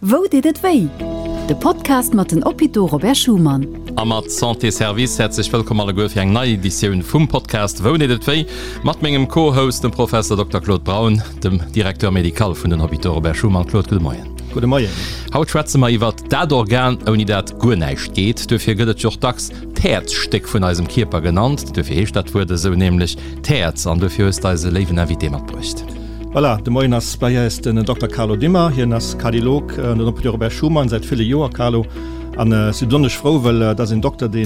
Wou deet et wéi? De Podcast mat den Hôpitaux Robert Schuman. A mat Santé Service häerzlech wëllkomm alleguer fir eng nei Editioun vum Podcast Wou deet et wéi? Mat mengem Co-Host, dem Professor Dokter Claude Braun, dem Directeur médical vun den Hôpitaux Robert Schuman. Claude, gudde Moien. Gudde Moien. Haut schwätze mer iwwert dat Organ, ouni dat guer näischt geet. Duerfir gëtt et jo och dacks d'Häerzstéck vun eisem Kierper genannt. Duerfir heescht dat Wuert esou, nämlech d'Häerz. An duerfir hues de eis e léiwen Invité matbruecht. Voilà, de Moien ass bei eis den Dokter Carlo Dimmer. Hien ass Kardiolog an den Hôpitaux Robert Schuman säit ville Joer. Carlo, an ech si besonnesch frou, well et ass een Dokter, dee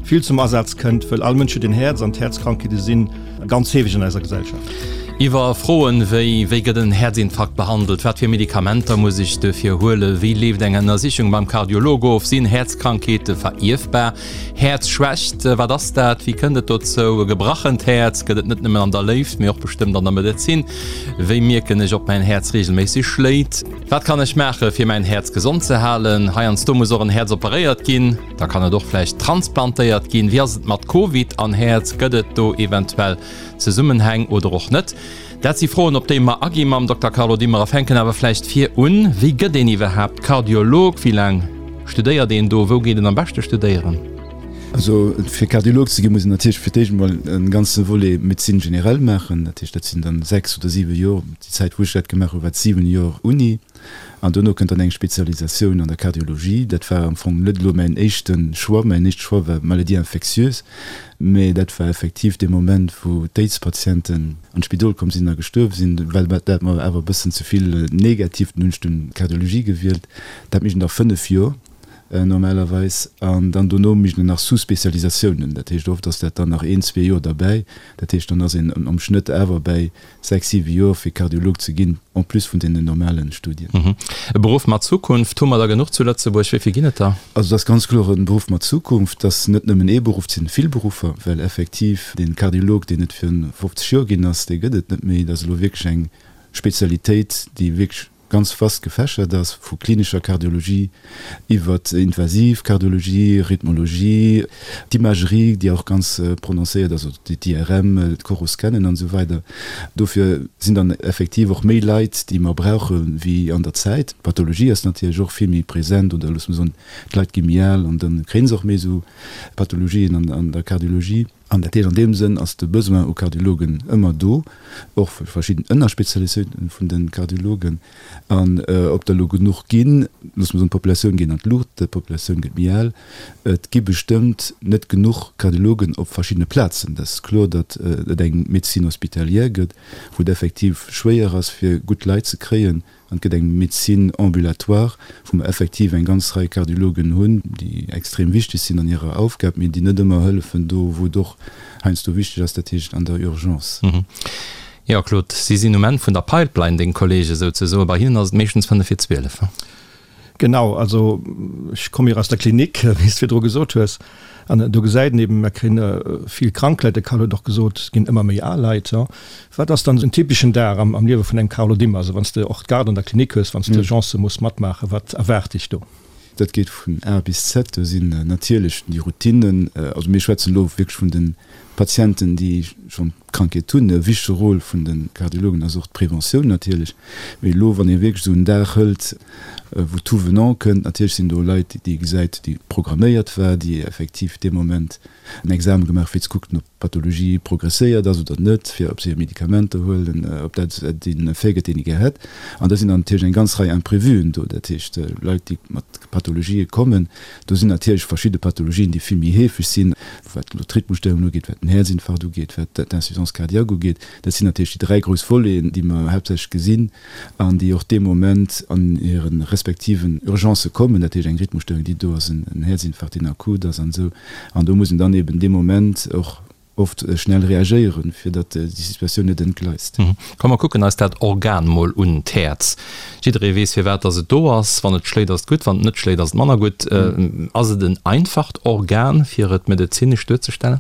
vill zum Asaz kënnt, wëll all Mënsch huet een Häerz an d'Häerzkrankheete si ganz heefeg an eiser Gesellschaft. Iwwer Froen wéi, Wéi gëtt en Häerzinfarkt behandelt? Wat fir Medikamenter muss ech duerfir huelen? Wéi leeft eng Ënnersichung beim Kardiolog of? Sinn Häerzkrankheete verierfbar? Häerzschwächt, wat ass dat? Wéi kënnt et dozou? E gebrachent Häerz gëtt et net nëmmen an der Léift, mee och bestëmmt an der Medezin. Wéi mierken ech, ob mäin Häerz reegelméisseg schléit? Wat kann ech maache fir mäin Häerz gesond ze halen? Heiansdo muss och en Häerz operéiert ginn, da kann et och vläicht transplantéiert ginn. Wéi ass et mat Covid an Häerz? Gëtt et do eventuell Zesummenhäng oder och net? Dat si Froen, op déi mer agi mam Dokter Carlo Dimmer a fänken awer vläicht vir un, Wéi gëtt een iwwerhaapt Kardiolog? Wéi laang studéiert een do? Wou geet een am beschte studéieren? Also fir Kardiolog ze ginn, muss een natierlech fir d'éischt emol e ganze Volet Médecine générale maachen. Dat heescht, dat sinn dann 6 oder 7 Joer. Déi Zäit, wou ech dat gemaach hu war et 7 Joer Uni. An dono kënnt dann eng Spezialisatioun an der Kardiologie. Dat war am Fong net elo mäin éischte Choix. Mäin éischte Choix war Maladies infectieuses. Mee dat war effektiv dee Moment, wou d'Aids-Patienten an d'Spidol komm sinn a gestuerf sinn, well dat mer awer e bëssen ze vill negativ, dunn hunn ech dunn d'Kardiologie gewielt. Dat mécht een da 5 Joer normalerweis. An dann dono mécht een nach Sous-Spezialisatiounen. Dat heescht, oft ass dat dann nach een, zwee Joer derbäi. Dat heescht, dann ass een am Schnëtt awer bäi 6, 7 Joer fir Kardiolog ze ginn, en plus vun deenen normalen Studien. E Beruff mat Zukunft, hu mer der genuch zu Lëtzebuerg? Wéi vill ginn et der? Also et ass ganz kloer e Beruff mat Zukunft. Et ass net nëmmen ee Beruff, et sinn vill Beruffer, well effektiv dee Kardiolog, deen et virun 50 Joer ginn ass, dee gëtt et net méi. Et ass elo wierklech eng Spezialitéit, déi wierklech ganz vast gefächert ass, vu klinescher Kardiologie iwwert invasiv Kardiologie, Rhythmologie, d'Imagerie, déi och ganz prononcéiert ass, also d'IRM, d'Coroscannen an esou weider. Dofir sinn dann effektiv och méi Leit, déi mer brauche wéi an der Zäit. D'Pathologie ass natierlech och vill méi present, oder loosse mer soen, d'Leit gi méi al an da kréie se och méi esou Pathologien an der Kardiologie. An dat heescht, an deem Sënn ass de Besoin u Kardiologen ëmmer do, och fir verschidden Ënnerspezialisatiounen vun de Kardiologen. An ob der elo genuch ginn, loosse mer soen, d'Populatioun geet an d'Luucht, d'Populatioun gëtt méi al, et gi bestëmmt net genuch Kardiologen op verschiddene Plazen. Dat ass kloer, datt et eng Médecine hospitalière gëtt, wou et effektiv schwéier ass, fir gutt Leit ze kréien. An et gëtt eng Médecine ambulatoire, wou mer effektiv eng ganz Rei Kardiologen hunn, déi extrem wichteg sinn an hirer Aufgab, mee déi net ëmmer hëllefen do, wou et och heiansdo wichteg ass, dat heescht an der Urgence. Jo, Claude, si sinn um Enn vun der Pipeline, deng Kollege souzesoen. Bei hinnen ass et meeschtens fënnef vir 12. Genau, also ech komme jo aus der Klinik, wéi s de virdru gesot hues, an do gesäit een eben, mer kréien vill krank Leit, de Carlo huet och gesot, et ginn ëmmer méi al Leit. Wat ass dann en typeschen Dag am Liewe vun engem Carlo Dimmer, also wann s de och d'Garde an der Klinik hues, wann s d'Urgencë muss matmaachen, wat erwaart dech do? Dat geet vun A bis Z, do sinn natierlech déi Routinnen, also mir schwätzen elo wierklech vun de Patienten, déi schonn d'Krankheet hunn. E wichtege Rôle vun de Kardiologen ass och d'Preventioun natierlech. Mee elo, wann ee wierklech esou en Dag hëlt, wou tout venant kënnt, natierlech sinn do Leit, déi ee gesäit, déi programméiert war, déi effektiv dee Moment en Examen gemaach fir ze kucken, ob d'Pathologie progresséiert ass oder net, fir ob se hir Medikamenter huelen, ob dat deen Effet gëtt, deen ee gär hätt. An da sinn dann natierlech eng ganz Rei Imprévuen do, dat heescht Leit, déi mat Pathologië kommen. Do sinn natierlech verschidde Pathologien, déi vill méi heefeg sinn, wat elo d'Rhythmusstörungen ugeet, wat den Häerzinfarkt ugeet, wat d'Insuffisance cardiaque ugeet. Dat sinn natierlech déi dräi grouss Voleten, déi mer haaptsächlech gesinn an déi och dee Moment an hire respektiven Urgencë kommen, dat heescht eng Rhythmusstörung, déi do ass, en Häerzinfarkt, deen akut ass an esou. An do muss een dann eben dee Moment och oft schnell reagéieren, fir datt déi Situatioun net entgleist. Komm mer kucken eis dat Organ mol un, d'Häerz. Jidderee weess firwat datt et do ass. Wann et schléit ass et gutt, wann et net schléit ass et manner gutt. Ass et en einfacht Organ fir et medezinesch duerzestellen?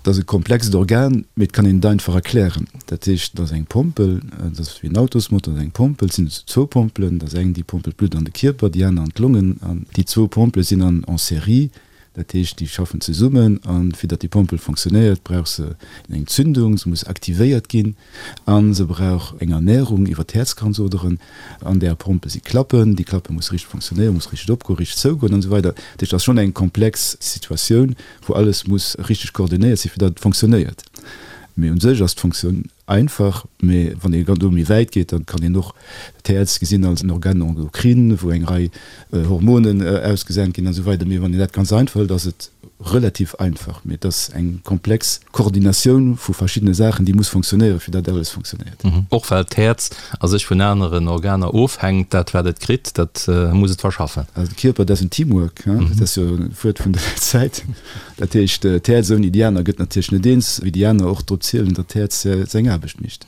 Et ass e komplext Organ, mee et kann een et einfach erklären. Dat heescht, et ass eng Pompel, et ass wéi en Autosmotor, et ass eng Pompel, et sinn zwou Pompelen, et ass eng déi pompelt d'Blutt an de Kierper, déi aner an d'Longen. An déi zwou Pompele sinn an en série. Dat heescht, déi schaffen zesummen a fir datt déi Pompel fonctionnéiert, brauch se eng Zündung, se muss aktivéiert ginn a se brauch eng Ernährung iwwer d'Häerzkranzoderen. An där Pompel si Klappen, déi Klappe musse richteg fonctionnéieren, muss richteg opgoen, richteg zougoen an esou weider. Dat heescht, et ass schonn eng komplex Situatioun, wou alles muss richteg koordinéiert sinn, fir datt et fonctionnéiert. Mee u sech ass d'Fonctioun Einfach, mee wann ee do méi wäit geet, dann kann een och d'Häerz gesinn als en Organe endocrine, wou eng Rei Hormonen ausgesent ginn an esou weider. Mee wann een dat ganz einfach hëlt, ass et relativ einfach. Mee et ass eng komplex Koordinatioun vu verschiddene Saachen, déi muss fonctionnéieren, fir datt alles fonctionnéiert. Och well d'Häerz a sech vun aneren Organer ofhänkt, dat wat et kritt, dat muss et verschaffen. Also de Kierper, dat ass en Teamwork, dat ass jo e Wuert vun der Zäit. Dat heescht, d'Häerz ouni déi aner gëtt natierlech net eens, wéi déi aner och drop zielen, datt d'Häerz seng Aarbecht mécht.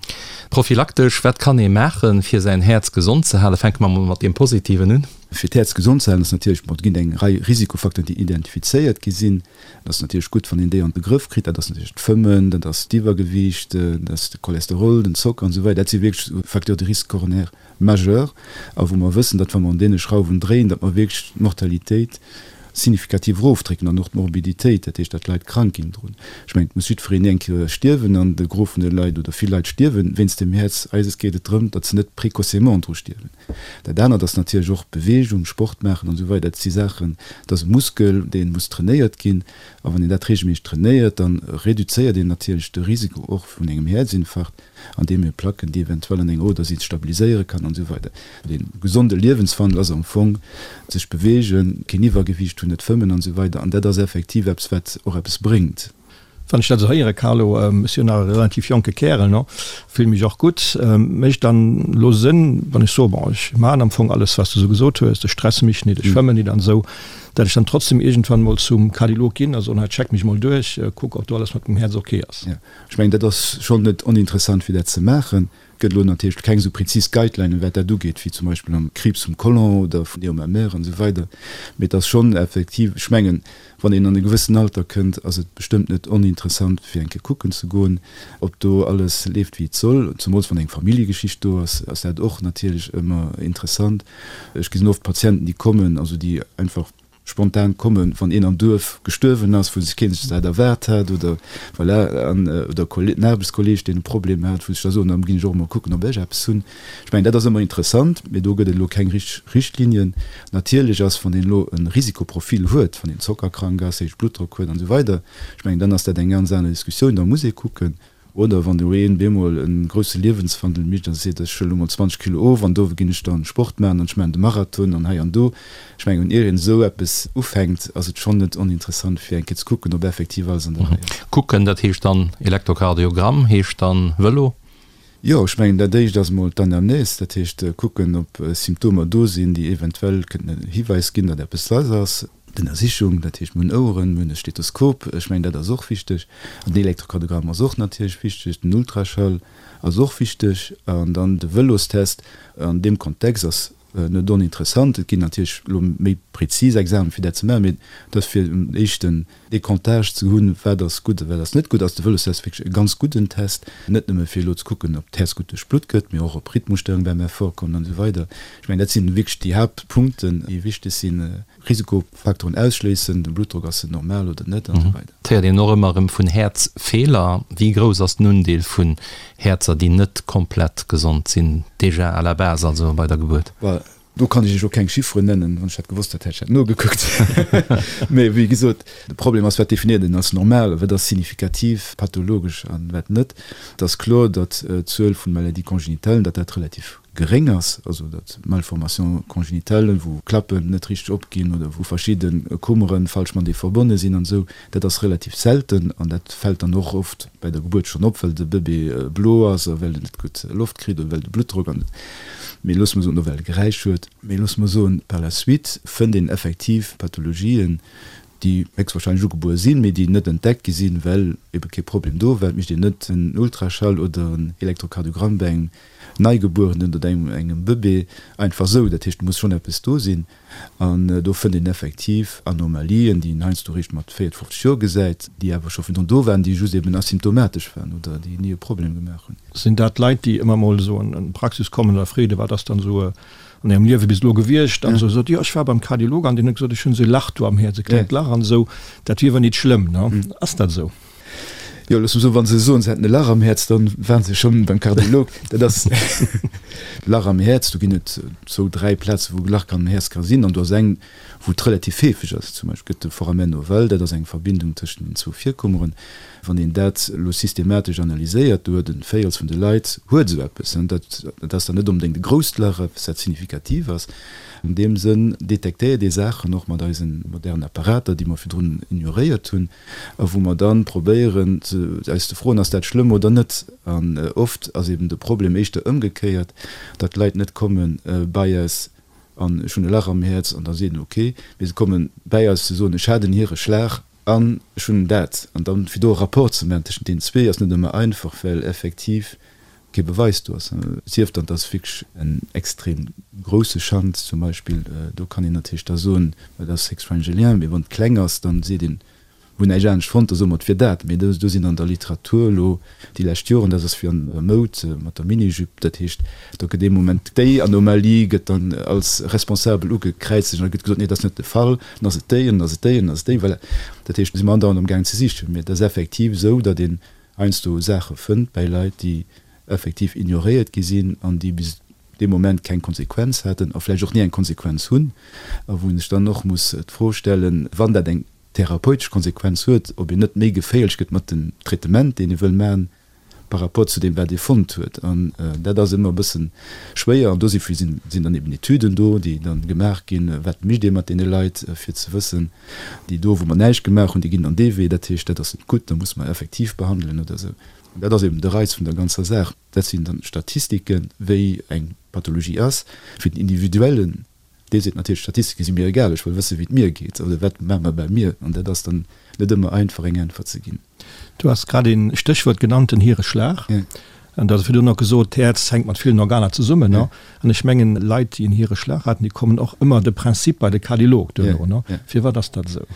Prophylaktesch, wat kann ee maachen, fir säin Häerz gesond ze halen? Fänke mer mol mat deem Positiven un. Fir d'Häerz gesond ze halen ass natierlech, bon, et ginn eng Rei Risikofacteuren, déi identifizéiert gi sinn. Et ass natierlech gutt, wann een déi an de Grëff kritt. Dat ass natierlech d'Fëmmen, dat ass d'Iwwergewiicht, dat ass de Cholesterol, den Zocker an esou weider. Dat si wierklech Facteurs de risque coronaire majeurs a wou mer wëssen, datt wa mer un deene Schrauwen dréien, datt mer wierklech d'Mortalitéit signifikativ erofdrécken an och d'Morbiditéit, dat heescht, datt d'Leit krank ginn drun. Ech mengen, et muss jiddwereen eng Kéier stierwen an de Gros vun de Leit oder vill Leit stierwe wéinst dem Häerz. Eises geet et drëm, datt se net précocement dru stierwen. Dat anert ass natierlech och Beweegung, Sport maachen an esou weider. Dat si Saachen, dat ass e Muskel, dee muss trainéiert ginn a wann een dat reegelméisseg trainéiert, da reduzéiert een natierlech de Risiko och vun engem Häerzinfarkt. andeem ee Placken, déi eventuell an enger Oder sinn, stabiliséiere kann an esou weider. Dee gesonde Liewenswandel ass am Fong sech beweegen, keen Iwwergewiicht hunn, net fëmmen an esou weider. An dat ass effektiv eppes, wat och eppes bréngt. Wann ech dat esou héieren, Carlo, ech sinn jo nach e relativ jonke Kärel, no, fillen mech och gutt, mécht dann elo Sënn, wann ech soe, bon, ech maachen am Fong alles, wat s de esou gesot hues, ech stresse mech nit, ech fëmmen nit an esou, dat ech dann trotzdem iergendwann emol zum Kardiolog ginn a soen, hei, check mech emol duerch, kuck, ob do alles mat mengem Häerz ok ass? Ech mengen, dat ass schonn net oninteressant, fir dat ze maachen. Et gëtt elo natierlech keng esou prezis Guidelinen, wat dat ugeet, wéi zum Beispill am Kriibs vum Colon oder vun der Mammaire an esou weider. Mee et ass schonn effektiv, ech mengen, wann een an e gewëssen Alter kënnt, ass et bestëmmt net oninteressant, fir eng Kéier kucken ze goen, ob do alles leeft, wéi et soll. Zemools wann eng Familljegeschicht do ass, ass dat och natierlech ëmmer interessant. Ech gesinn oft Patienten, déi kommen, also déi einfach, spontan kommen, wann een am Duerf gestuerwen ass, wou sech keen sech dat erwaart hat, oder voilà, an oder en Aarbechtskolleeg, deen e Problem hat, wou sech da soen, da ginn ech och emol kucken, ob ech eppes hunn. Ech mengen, dat ass ëmmer interessant, mee do gëtt et elo keng richteg Richtlinien. Natierlech ass, wann een elo e Risikoprofil huet, wann een zockerkrank ass, héije Bluttdrock huet an esou weider, ech mengen, dann ass dat eng ganz aner Diskussioun, da muss ee kucken. Oder wann elo een bemol en grousse Liewenswandel mécht a seet, ech huelen elo mol 20 Kilo of an do ginn ech dann Sport maachen an ech maachen de Marathon an hei an do. Ech mengen, ier een esou eppes ufänkt, ass et schonn net oninteressant fir eng Kéier ze kucken, ob effektiv alles an der Rei ass. Kucken, dat heescht dann Elektrokardiogramm, heescht dann Vëlo? Jo, ech mengen dat éischt ass emol d'Anamnese, dat heescht kucken, ob Symptomer do sinn, déi eventuell kënnten en Hiwäis ginn, datt eppes lass ass. D'Ënnersichung, dat heescht mir hunn Oueren, mir hunn e Stethoskop, ech mengen dat ass och wichteg, an den Elektrokardiogramm ass och natierlech wichteg, den Ultraschall ass och wichteg an dann de Vëlostest an deem Kontext ass net oninteressant. Et ginn natierlech elo méi prezis Examen fir dat ze maachen, mee et ass fir en éischten Decomptage ze hunn, wat ass gutt a wat ass net gutt, ass de Vëlostest wierklech e ganz gudden Test, net nëmme fir elo ze kucken, ob d'Häerz gutt duerch d'Blutt gëtt, mee och ob Rhythmusstörung beim Effort kommen an esou weider. Ech mengen dat sinn wierklech déi Haaptpunkten, déi wichteg sinn. Risikofaktoren ausschléissen, den Bluttdrock, ass en normal oder net an esou weider. Et héiert een och ëmmer erëm vun Häerzfeeler. Wéi grouss ass den Undeel vun Häerzer, déi net komplett gesond sinn, déjà à la base, also bei der Gebuert? Well do kann ech Iech och keng Chifferen nennen. Wann ech dat gewosst hätt, hätt ech dat nogekuckt. Mee wéi gesot, de Problem ass, wat definéiert een als normal a wat ass signifikativ pathologesch an wat net. Et ass kloer, datt d'Zuel vun Maladies congénitales, datt dat relativ geréng ass, also datt Malformations congénitales, wou Klappen net richteg opginn oder wou verschidde Kummeren falsch matenee verbonne sinn an esou, dat ass relativ selten an dat fält dann och oft bei der Gebuert schonn op, well de Bëbee blo ass a well en net gutt Loft kritt oder well de Bluttdrock an, mee loosse mer soen, oder well e Geräisch huet. Mee loosse mer soen, par la suite fënnt een effektiv Pathologien, déi héchstwahrscheinlech ugebuer sinn, mee déi net entdeckt gi sinn, well ebe kee Problem do war. Et mécht een net en Ultraschall oder en Elektrokardiogramm bei engem Neigebuerenen oder engem Bëbee einfach esou. Dat heescht, do muss schonn eppes do sinn. An do fënnt een effektiv Anomalien, déi een heiansdo eréischt mat 40, 50 Joer gesäit, déi awer scho virdrun do waren, déi just eben asymptomatesch waren oder déi ni e Problem gemaach hunn. Sinn dat Leit, déi ëmmer mol esou an d'Praxis kommen oder freede, wat ass dann esou e. An ärem Liewe bis elo gewiescht? An esou sot, jo ech war beim Kardiolog an deen huet gesot, ech hunn esou e Lach do am Häerz, e klengt Lach an esou, dat wier awer nit schlëmm, ne? Ass dat esou? Jo, looss mer soen, wa se soen, se hätten e Lach am Häerz, da waren se schonn beim Kardiolog. Dat ass Lach am Häerz, do ginn et zwou, dräi Plaze wou e Lach am Häerz ka sinn an do ass eng, wou et relativ heefeg ass. Zum Beispill gëtt de Foramen ovale, dat ass eng Verbindung tëschent den zwou Virkummeren. Wann een dat elo systematesch analyséiert, do huet e Véirels vun de Leit huet esou eppes. Dat ass dann net onbedéngt e grousst Lach, eppes dat signifikativ ass. An deem Sënn detektéiert ee Saachen och mat eise modernen Apparater, déi mer virdrun ignoréiert hunn, a wou mer dann probéieren eis ze froen, ass dat schlëmm oder net? An oft ass eben de Problem éischter ëmgekéiert, datt d'Leit net komme bei eis an ech hunn e Lach am Häerz an da seet en ok, mee se komme bäi eis ze soen, ech hat en Hiereschlag an ech hunn dat. An dann fir do e Rapport ze maachen tëschent deenen zwee ass net ëmmer einfach, well effektiv kee Beweis do ass. Sief dann, et ass wierklech en extrem grousse Shunt zum Beispill, do kann een natierlech da soen, dat ass héchstwahrscheinlech e Lien, mee wann et kleng ass, dann seet een, Mir hunn näischt anescht fonnt, da soe mer, et wier dat. Mee do sinn an der Literatur elo déi lescht Joren, dat ass wéi an der Moud mat der Minijupe, dat heescht, do gëtt ee Moment déi Anomalie gëtt dann als responsabel ugekräizegt an da gëtt gesot, nee, dat ass net de Fall, dann ass et déi an dann ass et déi an dann ass et déi. Voilà. Dat heescht, do si mer andauernd amgaangen ze sichen. Mee et ass effektiv esou, datt een heiansdo Saache fënnt bäi Leit, déi effektiv ignoréiert gi sinn an déi bis dee Moment keng Konsequenz haten a vläicht och ni eng Konsequenz hunn a wou een sech dann och muss d'Fro stellen, wann dat eng therapeutesch Konsequenz huet, ob een net méi geféierlech gëtt mat dem Traitement, deen ee wëll maachen, par rapport zu deem, wat ee fonnt huet. An dat ass ëmmer e bësse schwéier. An dosifir sinn dann eben Etüden do, déi da gemaach ginn, wat mécht ee mat deene Leit, fir ze wëssen, déi do, wou mer näischt gemaach hunn, déi ginn dann dee Wee, dat heescht, dat ass net gutt, da musse mer effektiv behandelen oder esou. An dat ass eben de Reiz vun der ganzer Saach. Dat sinn dann Statistiken, wéi eng Pathologie ass, fir den individuellen Dee seet natierlech, d'Statistike si mir egal, ech wëll wësse wéi et mir geet oder wat maache mer bei mir. An dat ass dann net ëmmer einfach eng Äntwert ze ginn. Du has grad een Stéchwuert genannt, den Hiereschlag. An du has virdrun och gesot, d'Häerz hänkt mat villen Organer zesummen. An ech mengen, Leit, déi en Hiereschlag haten, déi kommen och ëmmer de Prinzip bei de Kardiolog duerno. Firwat ass dat esou?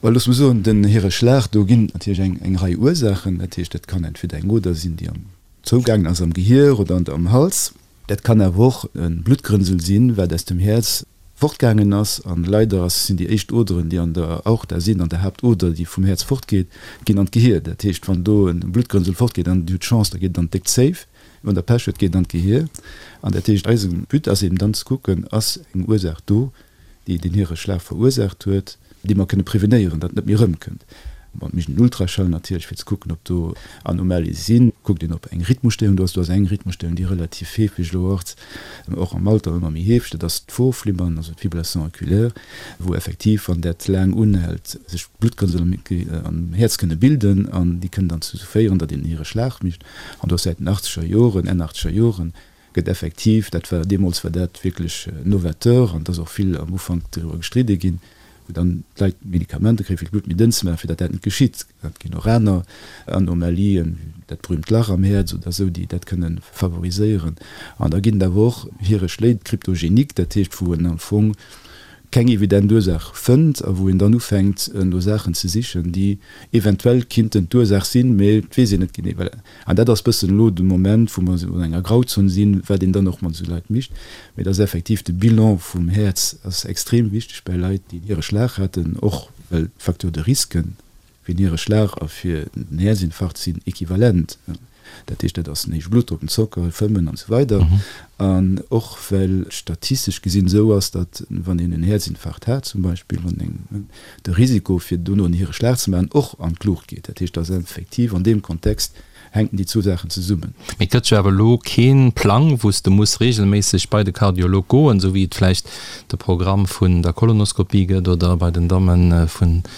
Well looss mer soen, den Hiereschlag, do ginn et natierlech eng Rei Ursaachen. Dat heescht, dat kann entweder eng Oder sinn, déi am zougaangen ass am Gehier oder am Hals. Dat kann awer och e Bluttgrënsel sinn, wat aus dem Häerz fortgaangen ass. An leider ass, sinn déi éischt Oderen, déi an der Aorta sinn, an der Haaptoder, déi vum Häerz fortgeet, ginn an d'Gehier. Dat heescht, wann do e Bluttgrënsel fortgeet an Dir hutt Chance, da geet et an d'déck Zéif. Wann Der Pech hutt, geet et an d'Gehier. An dat heescht, eise But ass eben dann ze kucken, ass eng Ursaach do, déi den Hiereschlag verursaacht huet, déi mer kënne prevenéieren, datt et net méi erëmkënnt. Bon, et mécht een Ultraschall natierlech, fir ze kucken, ob do Anomalie sinn. Kuckt een, ob eng Rhythmusstéierung do ass. Do ass eng Rhythmusstéierung, déi relativ heefeg elo ass, och am Alter ëmmer méi heefeg, dat ass d'Vorflimmern, also d'Fibrillation auriculaire, wou effektiv, wann dat laang unhält, sech Bluttgrënsel am Häerz kënne bilden an déi kënnen dann dozou féieren, datt een en Hiereschlag mécht. An do ass säit den achtzeger Joren, Enn achtzeger Joren, gëtt effektiv, dat war deemools war dat wierklech novateur an et ass och vill am Ufank driwwer gestridde ginn, wou dann d'Leit Medikamenter kréien, fir d'Blutt méi dënn ze maachen, fir datt dat net geschitt. Et ginn och aner Anomalien, dat berühmt Lach am Häerz oder esou, déi dat kënne favoriséieren. An da ginn et awer och Hiereschléi, cryptogéniques, dat heescht, wou en am Fong keng evident Ursaach fënnt a wou een dann ufänkt no Saachen ze sichen, déi eventuell kinnten d'Ursaach sinn, mee et weess een net genee. Voilà. An dat ass bëssen elo de Moment, wou mer an enger Grauzon sinn, wat een dann och mat esou Leit mécht. Mee et ass effektiv, de Bilan vum Häerz ass extrem wichteg bäi Leit, déi en Hiereschlag haten, och well d'Facteurs de risque fir en Hiereschlag a fir den Häerzinfarkt sinn equivalent. Dat heescht, dat ass den héije Bluttdrock, den Zocker, Fëmmen an esou weider. An och well et statistesch gesinn esou ass, datt wann een en Häerzinfarkt hat zum Beispill, wann eng, de Risiko fir dono en Hiereschlag ze maachen och an d'Luucht geet. Dat heescht, datt effektiv an deem Kontext hänken déi zwou Saachen zesummen. Mee et gëtt jo awer elo kee Plang, wou s de muss reegelméisseg bei de Kardiolog goen, esou wéi et vläicht de Programm vun der Kolonoskopie gëtt oder bei den Damme vun der.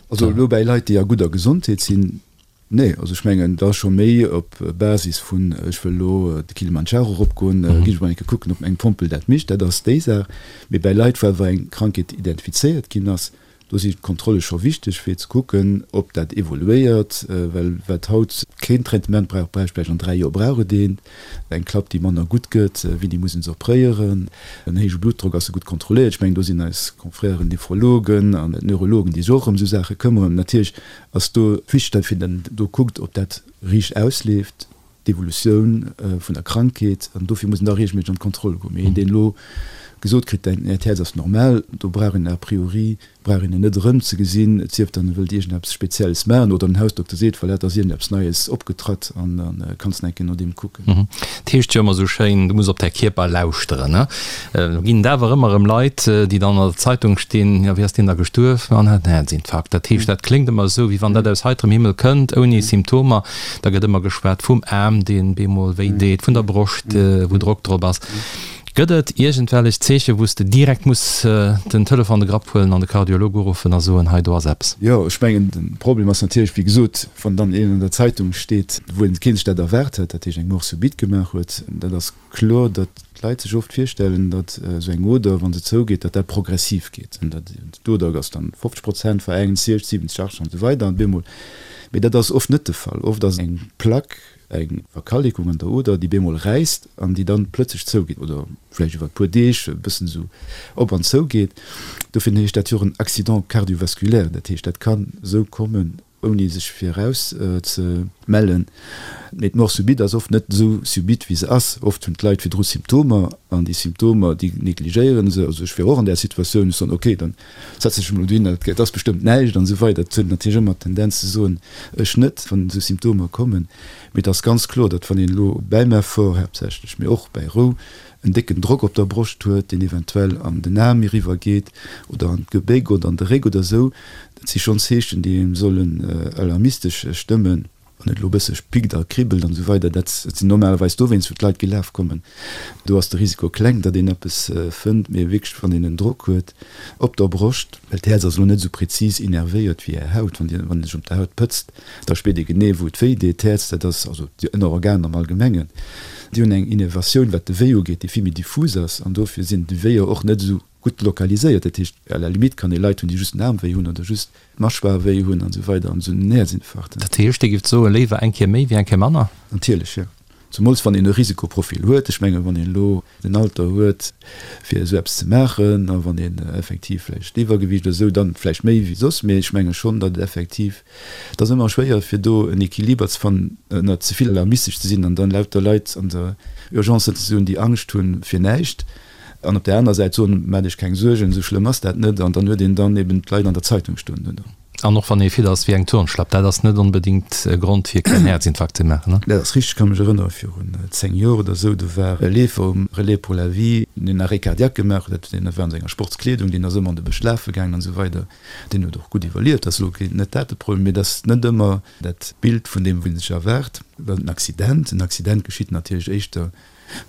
Also elo bäi Leit, déi a gudder Gesondheet sinn, Nee, also ech mengen, da scho méi op Basis vun, ech wëll elo de Kilimandscharo eropgoen, ginn ech mol eng Kéier kucken, ob eng Pompel dat mécht, dat ass déi Saach. Mee bäi Leit, wou awer eng Krankheet identifizéiert ginn ass, do si d'Kontrolle scho wichteg, fir ze kucken, ob dat evoluéiert. Well wat haut keen Traitement brauch, bräicht vläicht an 3 Joer brauch et eent. Eng Klapp, déi manner gutt gëtt, wéini muss een se opréieren? En héije Bluttdrock, ass e gutt kontrolléiert? Ech mengen, do sinn eis Confrèren Nephrologen an Neurologen, déi sech och ëm esou Saache këmmeren. Natierlech Ass do wichteg, datt een do kuckt, ob dat riicht ausleeft. d'Evolutioun vun der Krankheet an dofir muss een da reegelméisseg an d'Kontroll goen. Mee een, deen elo gesot kritt, däin Äert Häerz ass normal, do brauch een a priori brauch een en net erëm ze gesinn, et sief dann e wëllt iergendeppes Spezielles maachen oder den Hausdokter seet, voilà, et ass iergendeppes Neies opgetratt an da kanns de eng Kéier no deem kucken. Et heescht jo ëmmer esou schéin, du muss op däi Kierper lauschteren, ne? Lo ginn et awer ëmmer erëm Leit, déi dann an der Zeitung stinn, jo, wéi ass deen da gestuerf? Ma en hat en Häerzinfarkt. Dat heescht, dat kléngt ëmmer esou, wéi wann dat aus heiterem Himmel kënnt, ouni Symptomer. Da gëtt ëmmer geschwat vum Aarm, deen bemol wéi deet, vun der Broscht, wou Drock drop ass. Gëtt et iergendwellech Zeechen, wou s de direkt muss den Telefon an de Grapp huelen an de Kardiolog uruffen a soen, hei do ass eppes? Jo, ech mengen, de Problem ass natierlech, wéi gesot, wann dann een an der Zeitung steet, wou een keen sech dat erwaart huet, dat heescht eng Mort subite gemaach huet, dat ass kloer, datt d'Leit sech oft virstellen, datt esou eng Oder, wa se zougeet, datt dat progressiv geet an datt d'Oder ass dann 50 Prozent verengt, 60, 70, 80 an esou weider an bemol. Mee dat ass oft net de Fall. Oft ass eng Plaque, eng Verkalekung an der Oder, déi bemol räisst an déi dann plëtzlech zougeet oder vläicht iwwer e puer Deeg e bëssen esou op an zougeet. Dofir heescht dat jo och en Accident cardiovasculaire. Dat heescht, dat kann esou kommen, ouni sech viraus ze mellen. Mee d'Mort subite ass oft net esou subite, wéi se ass. Oft hunn d'Leit virdru Symptomer an déi Symptomer, déi negligéiere se. Also ech wier och an där Situatioun, ech soen, okay, dann setzen ech mech elo dohin, et ass bestëmmt näischt an esou weider. Et huet natierlech ëmmer d'Tendenz ze soen, ech net, wann esou Symptomer kommen. Mee et ass ganz kloer, datt wann een elo bäim Effort haaptsächlech, mee och bäi Rou, en décken Drock op der Broscht huet, deen eventuell an den Aarm eriwwer geet oder an d'Gebéck oder an de Réck oder esou, dat si schonn Zeechen, déi engem sollen alarmistesch stëmmen. Wann et elo e bësse pickt a kribbelt an esou weider, dat sinn normalerweis dowéinst, wou d'Leit gelaf kommen. Do ass de Risiko kleng, datt een eppes fënnt, mee wierklech, wann een en Drock huet op der Broscht, well d'Häerz ass elo net esou prezis innervéiert wéi Är Haut, wann Dir, wann ee sech op der Haut pëtzt, Da spiert ee genee, wou et wéi deet. D'Häerz, dat ass, also déi Ënnerorganer am Allgemengen, déi hunn eng Innervatioun, wat de Wéi ugeet, déi vill méi diffus ass. An dofir sinn déi Wéier och net esou gutt lokaliséiert. Dat heescht, à la limite kann ee Leit hunn, déi just den Aarm wéi hunn oder just d'Mâchoire wéi hunn an esou weider an esou en Häerzinfarkt. Dat heescht, Dir gift soen, léiwer eng Kéier méi wéi eng Kéier manner? Natierlech, jo. Zemools wann een e Risikoprofil huet. Ech mengen, wann een elo den Alter huet, fir esou eppes ze maachen, a wann een effektiv vläicht Iwwergewiicht oder esou, dann vläicht méi wéi soss. Mee ech menge schonn, datt et effektiv, et ass ëmmer schwéier, fir do en Equiliber ze fannen, ënner ze vill alarmistesch ze sinn an dann lauter Leit an der Urgence sëtzen ze hunn, déi Angscht hunn fir näischt, an op där anerer Säit soen, Maacht Iech keng Suergen, esou schlëmm ass dat net. An dann huet een dann eben d'Leit an der Zeitung stoen duerno. An och wann ee fit ass wéi eng Turnschlapp, dat ass net onbedéngt e Grond fir keen Häerzinfarkt ze maachen, ne? Dat ass richteg. Ech ka mech erënnere virun 10 Joer oder esou, do war e Leefer um Relais pour la vie, deen en Arrêt cardiaque gemaach huet. Deen war an senger Sportskleedung, deen ass ëmmer an de Bësch lafe gaangen an esou weider. Deen huet och gutt iwwerlieft. Dat ass elo net dat de Problem, mee et ass net ëmmer dat Bild vun deem, wat ee sech erwaart. Well en Accident, en Accident geschitt natierlech éischter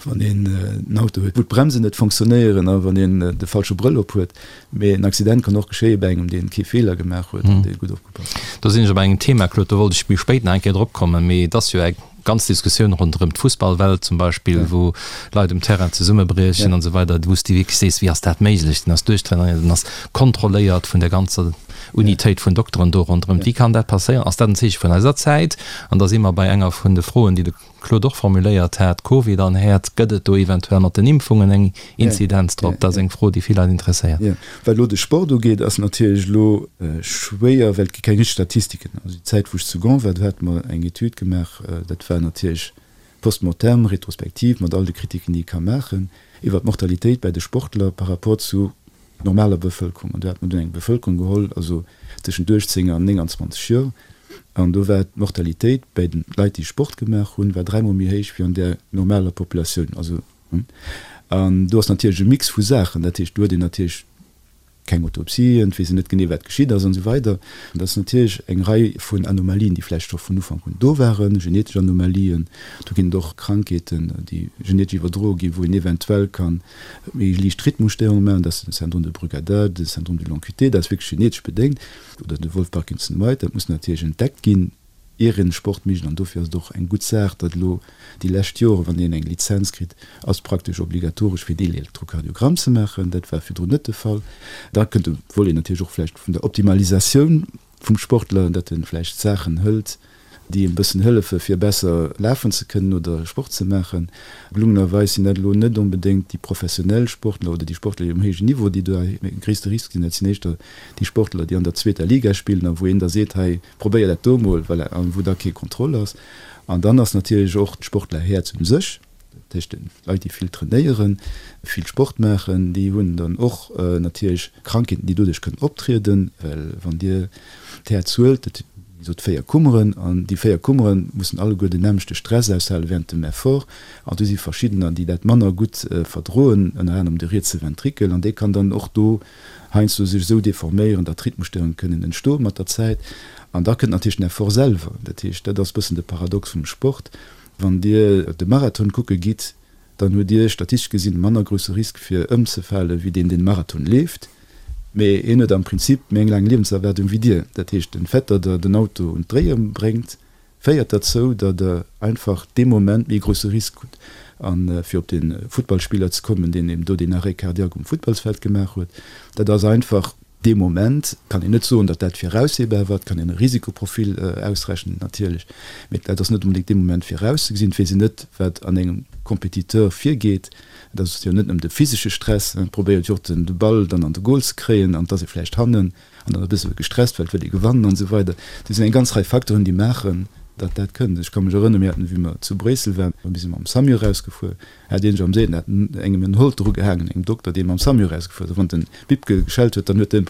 wann een en Auto huet, wou d'Bremsen net fonctionnéieren a wann een de falsche Brëll op huet. Mee en Accident kann och geschéie bei engem, dee kee Feeler gemaach huet an dee gutt opgepasst huet. Do sinn ech op engem Thema, Claude, do wollt ech méi spéit nach eng Kéier drop kommen, mee et ass jo eng ganz Diskussioun ronderëm d'Fussballwelt zum Beispill, wou Leit um Terrain zesummebriechen an esou weider, wou s de wierklech sees, wéi ass dat méiglech? Den ass duerchtrainéiert, den ass kontrolléiert vun der ganzer Unitéit vun Dokteren do ronderëm. Wéi kann dat passéieren? Ass dat en Zeeche vun eiser Zäit? An da si mer bei enger vun de Froen, déi de Claude och formuléiert hat, Covid an Häerz, gëtt et do eventuell mat den Impfungen eng Inzidenz drop? Dat ass eng Fro, déi vill Leit interesséiert. Jo, wat elo de Sport ugeet, ass natierlech elo schwéier, well et gi keng richteg Statistiken. Also déi Zäit, wou ech zu Gand war, do hate mer eng Etüd gemaach, dat war natierlech post-mortem, retrospektiv, mat all de Kritiken, déi ee ka maachen, iwwer d'Mortalitéit bäi de Sportler par rapport zu normaler Bevëlkerung. An do hat mer dunn eng Bevëlkerung geholl, also tëschent 18 an 29 Joer, an do war d'Mortalitéit bäi de Leit, déi Sport gemaach hunn, war dräimol méi héich wéi an där normaler Populatioun. Also, an do ass natierlech e Mix vu Saachen. Dat heescht, do huet een natierlech keng Autopsien, et weess een net genee, wat geschitt ass an esou weider. An dat ass natierlech eng Rei vun Anomalien, déi vläicht scho vun Ufank un do waren, genetesch Anomalien. Do ginn et och Krankheeten, déi genetesch iwwerdroe ginn, wou een eventuell kann méi liicht Rhythmusstéierunge maachen, dat ass den Syndrome de Brugada, de Syndrome du long QT, dat ass wierklech genetesch bedéngt, oder de Wolff-Parkinson-White, dat muss natierlech entdeckt ginn, ier een Sport mécht. An dofir ass et och eng gutt Saach, datt elo déi lescht Joren, wann een eng Lizenz kritt, ass praktesch obligatoresch fir een Elektrokardiogramm ze maachen. Dat war virdrun net de Fall. Da kënnt de Volet natierlech och vläicht vun der Optimalisatioun vum Sportler, datt e vläicht Saachen hëlt. Déi e bëssen hëllefe fir besser lafen ze kënnen oder Sport ze maachen. Gelungenerweis sinn dat elo net onbedéngt déi professionell Sportler oder déi Sportler, déi um héijen Niveau, déi do e gréisste Risk sinn. Dat sinn éischter déi Sportler, déi an der zweeter Liga spillen a wou een da seet, hei probéier dat do mol, voilà, a wou da kee Contrôle ass. An dann ass natierlech och d'Sportlerhäerz u sech, dat heescht Leit, déi vill trainéieren, vill Sport maachen, déi hunn dann och natierlech Krankheeten, déi doduerch kënnen optrieden, well wann Dir d'Häerz huelt, dat wéi gesot 4 Kummeren, an déi 4 Kummere mussen alleguer den nämmlechte Stress aushale während dem Effort, an do si verschiddener, déi dat manner gutt verdroen, ënner anerem de rietse Ventrikel, an dee kann dann och do heiansdo sech esou deforméieren, datt Rhythmusstörunge kënnen entstoe mat der Zäit. An da kënnt natierlech den Effort selwer, dat heescht, dat ass e bëssen de Paradox vum Sport, Wann Dir de Marathon kucke gitt, dann hutt Dir statistesch gesinn e manner grousse Risk fir ëmzefale wéi deen, deen de Marathon leeft. Mee hien huet am Prinzip méi eng laang Liewenserwaardung wéi Dir. Dat heescht, den Fait, datt Der den Auto un d'Dréie bréngt, féiert derzou, datt Der einfach dee Moment méi e grousse Risk hutt. A fir op de Futtballspiller ze kommen, deen eben do deen Arrêt cardiaque um Futtballsfeld gemaach huet, dat ass einfach, Dee Moment kann een net soen, datt dat viraussehbar war. Et kann een e Risikoprofil ausrechnen natierlech, mee dat ass net onbedéngt dee Moment virauszegesinn. Et weess een net, wat an engem Compétiteur virgeet. Et ass jo net nëmmen de physesche Stress, et probéiert jo och de Ball dann an de Goal ze kréien an et ass ee vläicht hannen an dann e bësse gestresst, well et wëll ee gewannen an esou weider. Do sinn eng ganz Rei Facteuren, déi maachen, datt dat kënnt. Ech ka mech erënneren, mir haten, wéi mer zu Bréissel waren, mir si mam Samu erausgefuer, Hat een am Seet engem en Holter ugehaangen, engem Dokter, dee mam Samu erausgefuer ass. A wann den Bip geschellt huet, dann huet en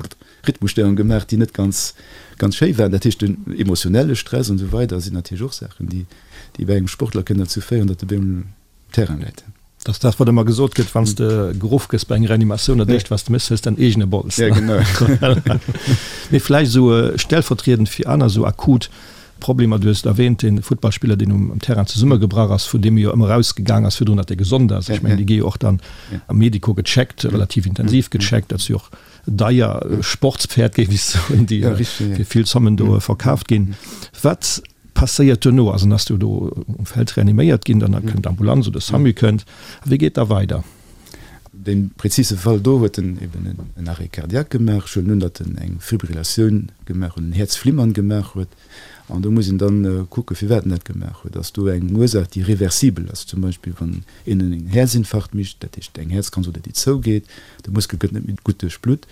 Rhythmusstörung gemaach, déi net ganz, ganz schéi waren. Dat heescht, den emotionelle Stress an esou weider sinn natierlech och Saachen, déi, déi bei engem Sportler kënnen derzou féieren, datt e bémol um Terrain läit. Dat ass dat, wat ëmmer gesot gëtt, wann s de geruff gëss bei enger Reanimatioun, dat éischt, wat s de méchs, hues däin eegene Bols. Ja, genau. Mee vläicht esou stellvertriedend fir aner esou akut Problemer, du hues et erwähnt, dee Futtballspiller, deen um Terrain zesummegebrach ass, vun deem jo ëmmer erausgegaang ass virdrun, datt e gesond ass. Ech mengen, déi gi jo och dann am Medico gecheckt, relativ intensiv gecheckt. Dat si jo och deier Sportspferd, géif ech soen, déi fir vill Zommen do verkaaft ginn. Wat passéiert duerno? Also, dann ass du do um Feld reaniméiert ginn, dann kënnt d'Ambulanz oder de Samu kënnt. A wéi geet da weider? Dee prezise Fall do huet en eben en Arrêt cardiaque gemaach. Ech huelen un, datt en eng Fibrillatioun gemaach huet, en Häerzflimmern gemaach huet. An do muss een dann kucken, firwat en dat gemaach huet. Ass do eng Ursaach, déi reversibel ass? Zum Beispill wann een en Häerzinfarkt mécht, dat heescht eng Häerzkranz oder déi zougeet, de Muskel gëtt net méi gutt duerchblutt.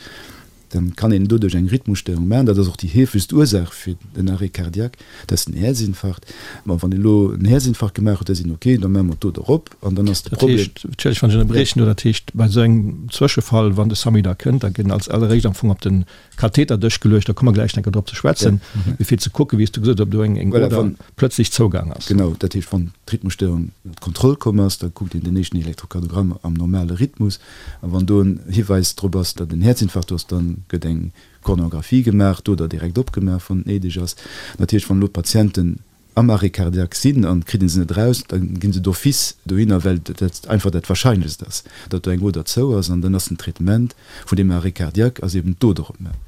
Dann kann een doduerch eng Rhythmusstörung maachen. Dat ass och déi heefegst Ursaach fir den Arrêt cardiaque, dat ass den Häerzinfarkt. Ma wann een elo en Häerzinfarkt gemaach huet, da seet een, okay, da maache mer d'Doder op an dann ass de Dat Problem. heescht, entschëllegt, wann ech ënnerbriechen do, dat heescht, bei esou engem Zwëschefall, wann de Samu da kënnt, da gëtt als alleréischt am Fong op de Katheterdësch geluecht, da komme mer gläich enker drop ze schwätzen, mee fir ze kucken, wéi s du gesot hues, ob do eng Voilà, Oder wann, plötzlech zougaang ass. Genau, dat heescht, wann d'Rhythmusstörung ënner Kontroll komm ass, da kuckt een den éischten Elektrokardiogramm am normale Rhythmus. A wann do en Hiweis drop ass, datt en Häerzinfarkt do ass, da gëtt eng Koronographie gemaach, d'Oder direkt opgemaach, wann et néideg ass. Natierlech, wann elo d'Patienten am Arrêt cardiaque sinn an et kritt ee se net eraus, da gi se d'office dohinner, well dat einfach dat Warscheinlechst ass, datt do eng Oder zou ass. An dann ass den Traitement vun deem Arrêt cardiaque ass eben d'Oder opmaachen.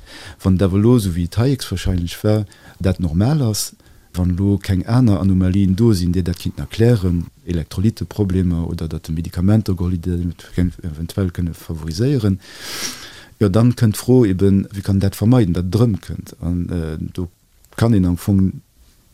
Wann et awer elo, esou wéi et hei héchstwahrscheinlech war, dat normal ass, Wann elo keng aner Anomalien do sinn, déi dat kinnten erklären, Elektrolyteproblemer oder datt e Medikamenter geholl huet, déi dat eventuell kënne favoriséieren, jo dann kënnt d'Fro eben, wéi kann een dat vermeiden, datt et erëmkënnt. An do kann een am Fong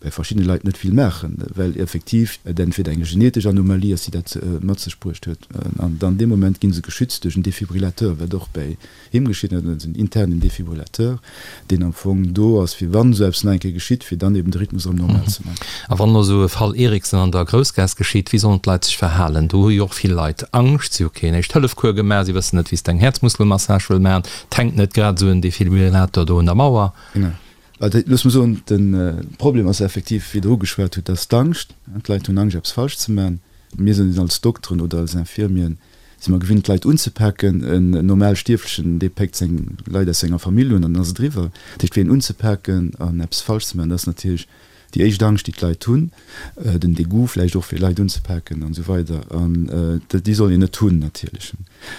bei verschiddene Leit net vill maachen, well effektiv et entweder eng genetesch Anomalie ass, déi dat mat sech bruecht huet, an dann dee Moment gi se geschützt duerch en Defibrillateur, wat och bäi Him geschitt net, en internen Defibrillateur, deen am Fong do ass, fir wann esou eppes nach eng Kéier geschitt, fir dann eben de Rhythmus erëm normal ze maachen. A wann elo esou e Fall Eriksen an der Groussgaass geschitt, wéi sollen d'Leit sech verhalen? Do hu jo och vill Leit Angscht, si hu keen Éischt-Hëllef-Cours gemaach, si wëssen net, wéi s de eng Häerzmuskelmassage wëll maachen, et hänkt net grad esou en Defibrillator do un der Mauer. Genau. Also looss mer soen, de Problem ass effektiv, wéi Der ugeschwat hutt, dass d'Angscht, d'Leit hunn Angscht eppes falsch ze maachen. Mir sinn als Dokteren oder als Infirmieren Si mer gewinnt d'Leit unzepaken. En normal Stierflechen, dee péckt seng Leit aus senger Famill un an dann ass et eriwwer. Dat heescht, fir een unzepaken an eppes falsch ze maachen, dat ass natierlech déi éischt Angscht, déi d'Leit hunn, den Degoût vläicht och, fir Leit unzepaken an esou weider. An déi soll een net hunn natierlech.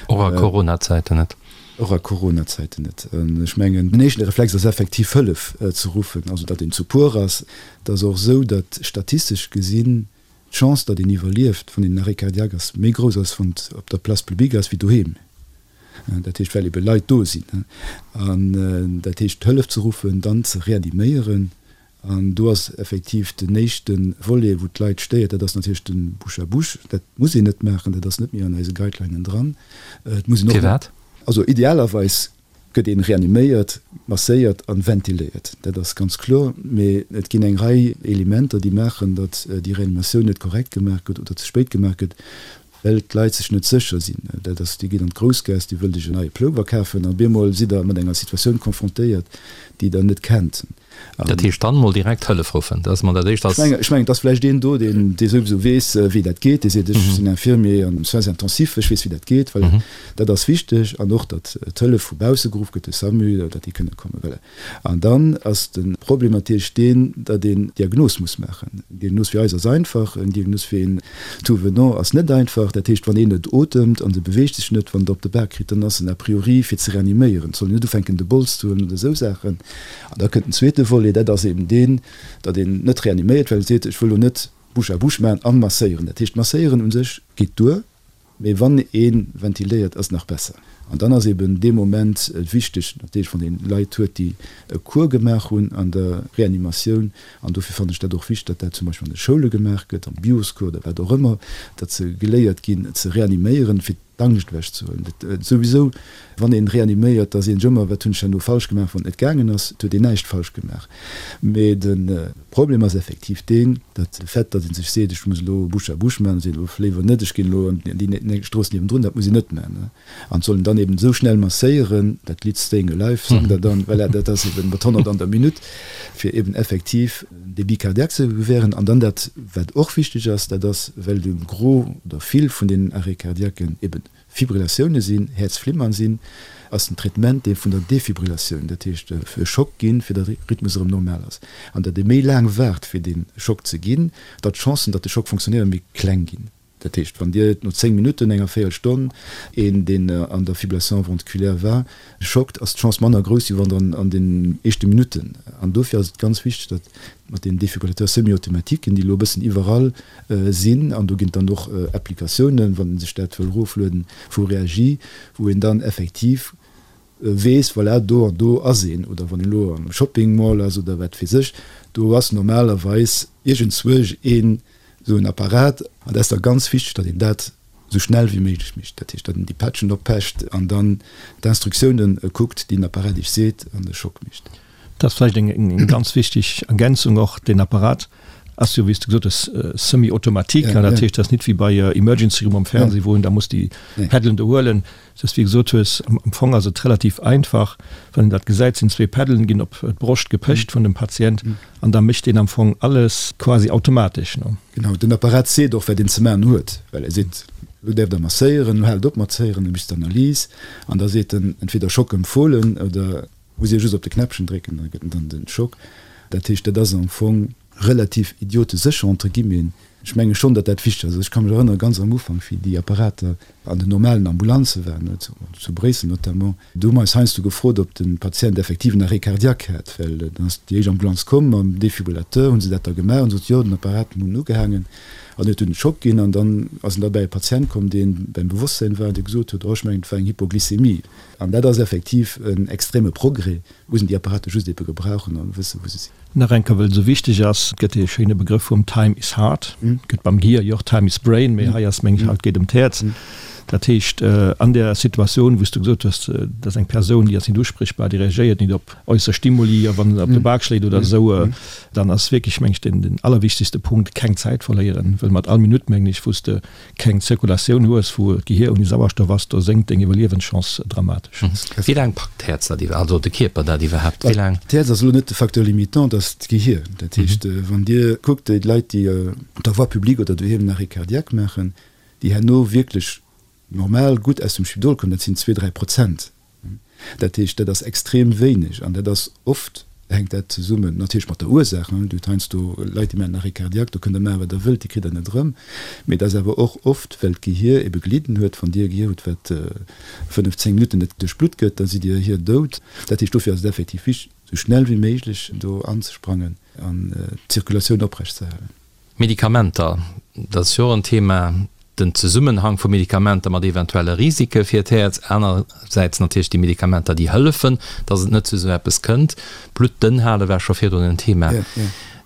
Och a Coronazäiten net. Och a Coronazäiten net. An ech mengen, den éischten Reflex ass effektiv Hëllef ze ruffen, also datt een zu puer ass. Et ass och esou, datt statistesch gesinn D'Chance, datt een iwwerlieft, wann een en Arrêt cardiaque ass, méi grouss ass, wann et op der Place publique ass, wéi doheem. Dat heescht, well ebe Leit do sinn. An dat heescht, Hëllef ze ruffen, dann ze reaniméieren. An do ass effektiv den éischte Volet, wou d'Leit stéiert, dat ass natierlech de Bouche à bouche. Dat muss een net maachen, dat ass net méi an eise Guidelinen dran. Et muss een och. Firwat? Also idealerweis gëtt een reaniméiert, masséiert an ventiléiert, dat ass ganz kloer. Mee et ginn eng Rei Elementer, déi maachen, datt déi Reanimatioun net korrekt gemaach gëtt oder ze spéit gemaach gëtt, well d'Leit sech net sécher sinn. Dat ass, Dir gitt an d'Groussgaass, Dir wëllt Iech en neie Plover kafen an op eemol sidd Der mat enger Situatioun konfrontéiert, déi Der net kennt. Dat heescht dann mol direkt Hëllef ruffen, dat ass mol dat Éischt. Ech mengen, ech mengen, et ass vläicht een do, deen, dee souwisou weess, wéi dat geet, dee seet, ech sinn Infirmier an Soins intensifs, ech weess, wéi dat geet. Voilà, dat ass wichteg. An och, datt d'Hëllef vu bausse geruff gëtt, de SAMU, datt déi kënne kommen. Voilà. An dann ass de Problem natierlech deen, datt een d'Diagnos muss maachen. Eng Diagnos fir eis ass einfach, eng Diagnos fir een Tout-venant ass net einfach. Dat heescht, wann een net otemt an se beweegt sech net, wann Der op de Bak kritt, dann ass en a priori fir ze reaniméieren. Et soll een net ufänken de Bols ze huelen oder esou Saachen. An da kënnt den zweete Volet, dat ass eben deen, datt een net reaniméiert, well e seet, ech wëll elo net Bouche à bouche maachen an masséieren. Dat heescht, masséieren u sech geet duer. Mee wann ee ventiléiert, ass nach besser. An dann ass eben dee Moment wichteg, natierlech wann ee Leit huet, déi e Cours gemaach hunn an der Reanimatioun, an dofir fannen ech dat och wichteg, datt dat zum Beispill an de Schoule gemaach gëtt, am Bioscours oder wat och ëmmer, datt se geléiert ginn ze reaniméieren, fir d'Angscht ewechzehuelen. Dat souwisou, wann ee reaniméiert, da seet een sech ëmmer, wat hunn ech herno falsch gemaach, wann et net gaangen ass. Et huet een näischt falsch gemaach. Mee de Problem ass effektiv deen, datt de Fait, datt ee sech seet, ech muss elo Bouche à bouche maachen, seet elo léiwer net, ech ginn elo an déi Strooss niewendrun, dat muss een net maachen. An et soll een dann eben esou schnell masséieren, dat Lidd Staying Alive sangt der dann, voilà, dat ass eben mat 100 an der Minutt, fir eben effektiv en Débit cardiaque ze gewähren. An dann dat, wat och wichteg ass, dat ass, well de Gros oder vill vun deenen Arrêts cardiaquen eben Fibrillatioune sinn, Häerzflimmern sinn, ass den Traitement dee vun der Defibrillatioun, dat heescht e Schock ginn, fir datt de Rhythmus erëm normal ass. An datt ee méi laang waart fir dee Schock ze ginn, datt d'Chancen, datt de Schock fonctionnéiert, méi kleng ginn. Dat heescht, wann Dir no 10 Minutten, enger Véierelstonn, een deen an der Fibrillation ventriculaire war, schockt, ass d'Chance manner grouss, wéi wann Der an den éischte Minutten. An dofir ass et ganz wichteg, datt mat den Défibrillateurs semi-automatiques, déi elo e bëssen iwwerall sinn, an do ginn et dann och Applikatiounen, wann ee sech dat wëll eroflueden, vu Reagi, wou een dann effektiv weess, voilà, do an do ass een, oder wann een elo am Shopping Mall ass oder wat weess ech, do ass normalerweis iergendzwousch een esou en Apparat. An dat ass da ganz wichteg, datt een dat esou schnell wéi méiglech mécht, dat heescht, datt een déi Patchen oppecht an dann d'Instruktiounen kuckt, déi den Apparat iech seet, an de Schock mécht. Dat ass vläicht eng ganz wichteg Ergänzung och. Deen Apparat ass jo, wéi s de gesot hues, semi-automatique. Dat heescht, dat ass nit wéi bei Emergency Room am Fernseh, wou een da muss déi Peddelen do huelen. Et ass, wéi gesot hues, am Fong ass et relativ einfach, wann een dat gesäit, sinn zwee Peddelen, ginn op d'Broscht gepecht vun dem Patient an da mécht deen am Fong alles quasi automatesch. Genau, den Apparat seet och, wat een ze maachen huet, well e seet, elo däerft Der masséieren, elo haalt op mat zéieren, elo méchst d'Analys an da seet en entweder Schock empfohlen oder Muss ee just op de Knäppchen drécken, da gëtt en dann den Schock. Dat heescht, dat ass am Fong relativ idiotesécher entre guillemets. Ech menge schonn, datt dat wichteg ass. Also ech ka mech erënnere ganz am Ufank, wéi déi Apparater an den normalen Ambulanze waren, zu Bréissel notamment, do hu mer eis heiansdo gefrot, ob de Patient effektiv en Arrêt cardiaque hat, well dann ass déi éischt Ambulanz komm mam Defibrillateur, hu se dat da gemaach an sot, jo, den Apparat hunn ugehaangen an huet dunn den Schock ginn. An dann ass en derbäi e Patient komm, dee beim Bewosstsäin war an dee gesot huet, oh, ech mengen, et war eng Hypoglycémie. An dat ass effektiv en extreme Progrès, muss een déi Apparate just ebe gebrauchen an wëssen, wou se sinn. Nach eng Kéier, well et esou wichteg ass, et gëtt dee schéine Begrëff vum Time is heart, gëtt beim Gehier jo och Time is brain, mee hei ass, meng ech, haut geet ëm d'Häerz. Dat heescht, an där Situatioun, wou s du gesot hues, dat ass eng Persoun, déi ass net usprichbar, déi reagéiert net op äusser Stimuli, a wann se op de Bak schléit oder esou, dann ass wierklech, meng ech, den allerwichtegste Punkt, keng Zäit verléieren, well mat all Minutt, mengen ech, wou s de keng Zirkulatioun hues, wou d'Gehier ouni Sauerstoff ass, do sénkt deng Iwwerliewenschance dramatesch. Wéi laang packt d'Häerz dat iwwer, also de Kierper dat iwwerhaapt, wéi laang? D'Häerz ass elo net de Facteur limitant, dat ass d'Gehier. Dat heescht, wann Dir kuckt, déi Leit, déi op der Voie publique oder doheem en Arrêt cardiaque maachen, déi herno wierklech normal gutt aus dem Spidol kommen, dat sinn zwee, 3 Prozent. Dat heescht, dat ass extrem wéineg an dat ass oft, hänkt dat zesummen natierlech mat der Ursaach. Dir hutt heiansdo Leit, déi maachen en Arrêt cardiaque, do kënnt Der maachen, wat Der wëllt, déi kritt Der net erëm. Mee et ass awer och oft, well d'Gehier ebe gelidden huet. Wann Dir e Gehier hutt, wat 5, 10 Minutten net duerchblutt gëtt, da sidd Dir hier dout. Dat heescht, dofir ass et effektiv wichteg, esou schnell wéi méiglech do anzesprangen an d'Zirkulatioun oprecht ze halen. Medikamenter, dat ass jo och en Thema. den Zesummenhang vu Medikamenter mat eventuelle Risike fir d'Häerz, anersäits natierlech déi Medikamenter, déi hëllefen, datt et net zu esou eppes kënnt. Blutt dënn hale war scho virdrun en Thema.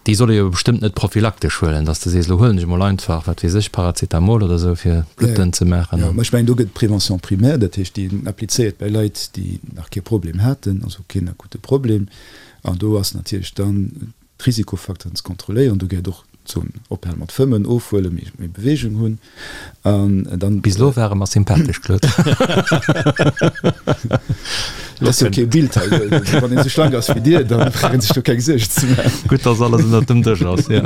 Déi soll ee jo bestëmmt net prophylaktesch huelen, datt s de sees, elo huelen ech emol einfach, wat weess ech, Paracetamol oder esou, fir d'Blutt dënn ze maachen. Jo, mä ech mengen, do gëtt d'Prévention primaire, dat heescht, déi een applizéiert bei Leit, déi nach kee Problem haten, also keen akute Problem. An do ass natierlech dann d'Risikofacteuren ze kontrolléieren. Do gehéiert och d'Zon ophale mat fëmmen, ofhuelen, méi méi Beweegung hunn an dann. Bis elo ware mer sympathesch, Claude. Et ass jo kee Bild hei. Wann een esou schlank ass wéi dir, da brauch een sech do keng Suergen ze maachen. Gutt, dass alles ënnert dem Dësch ass, jo.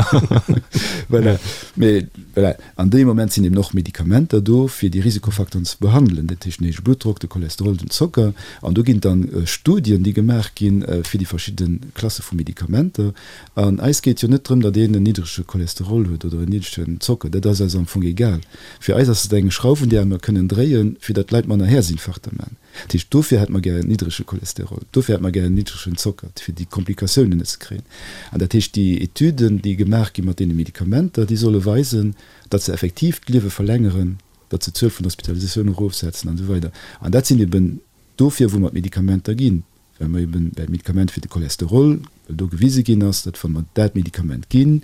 Voilà. Mee voilà, an deem Moment sinn eben och Medikamenter do, fir déi Risikofacteuren ze behandelen, dat heescht den héije Bluttdrock, de Cholesterol, den Zocker. An do ginn dann Studien, déi gemaach ginn, fir déi verschidde Klasse vu Medikamenter. An eis geet jo net drëm, datt een en niddrege Cholesterol huet oder en niddregen Zocker, dat ass eis am Fong egal. Fir eis ass et eng Schrauf, un där mer kënnen dréien, fir datt d'Leit manner Häerzinfarkter maachen. Dat heescht, dofir hätte mer gär en niddrege Cholesterol, dofir hätte mer gär en niddregen Zocker, fir déi Komplikatiounen net ze kréien. An dat heescht, déi Etüden, déi gemaach gi mat deene Medikamenter, déi solle weisen, datt se effektiv d'Liewe verlängeren, datt se d'Zuel vun Hospitalisatiounen erofsetzen an esou weider. An dat sinn eben dofir, wou mer d'Medikamenter ginn. well mer eben dat Medikament fir de Cholesterol, well do gewise ginn ass, datt wa mer dat Medikament ginn,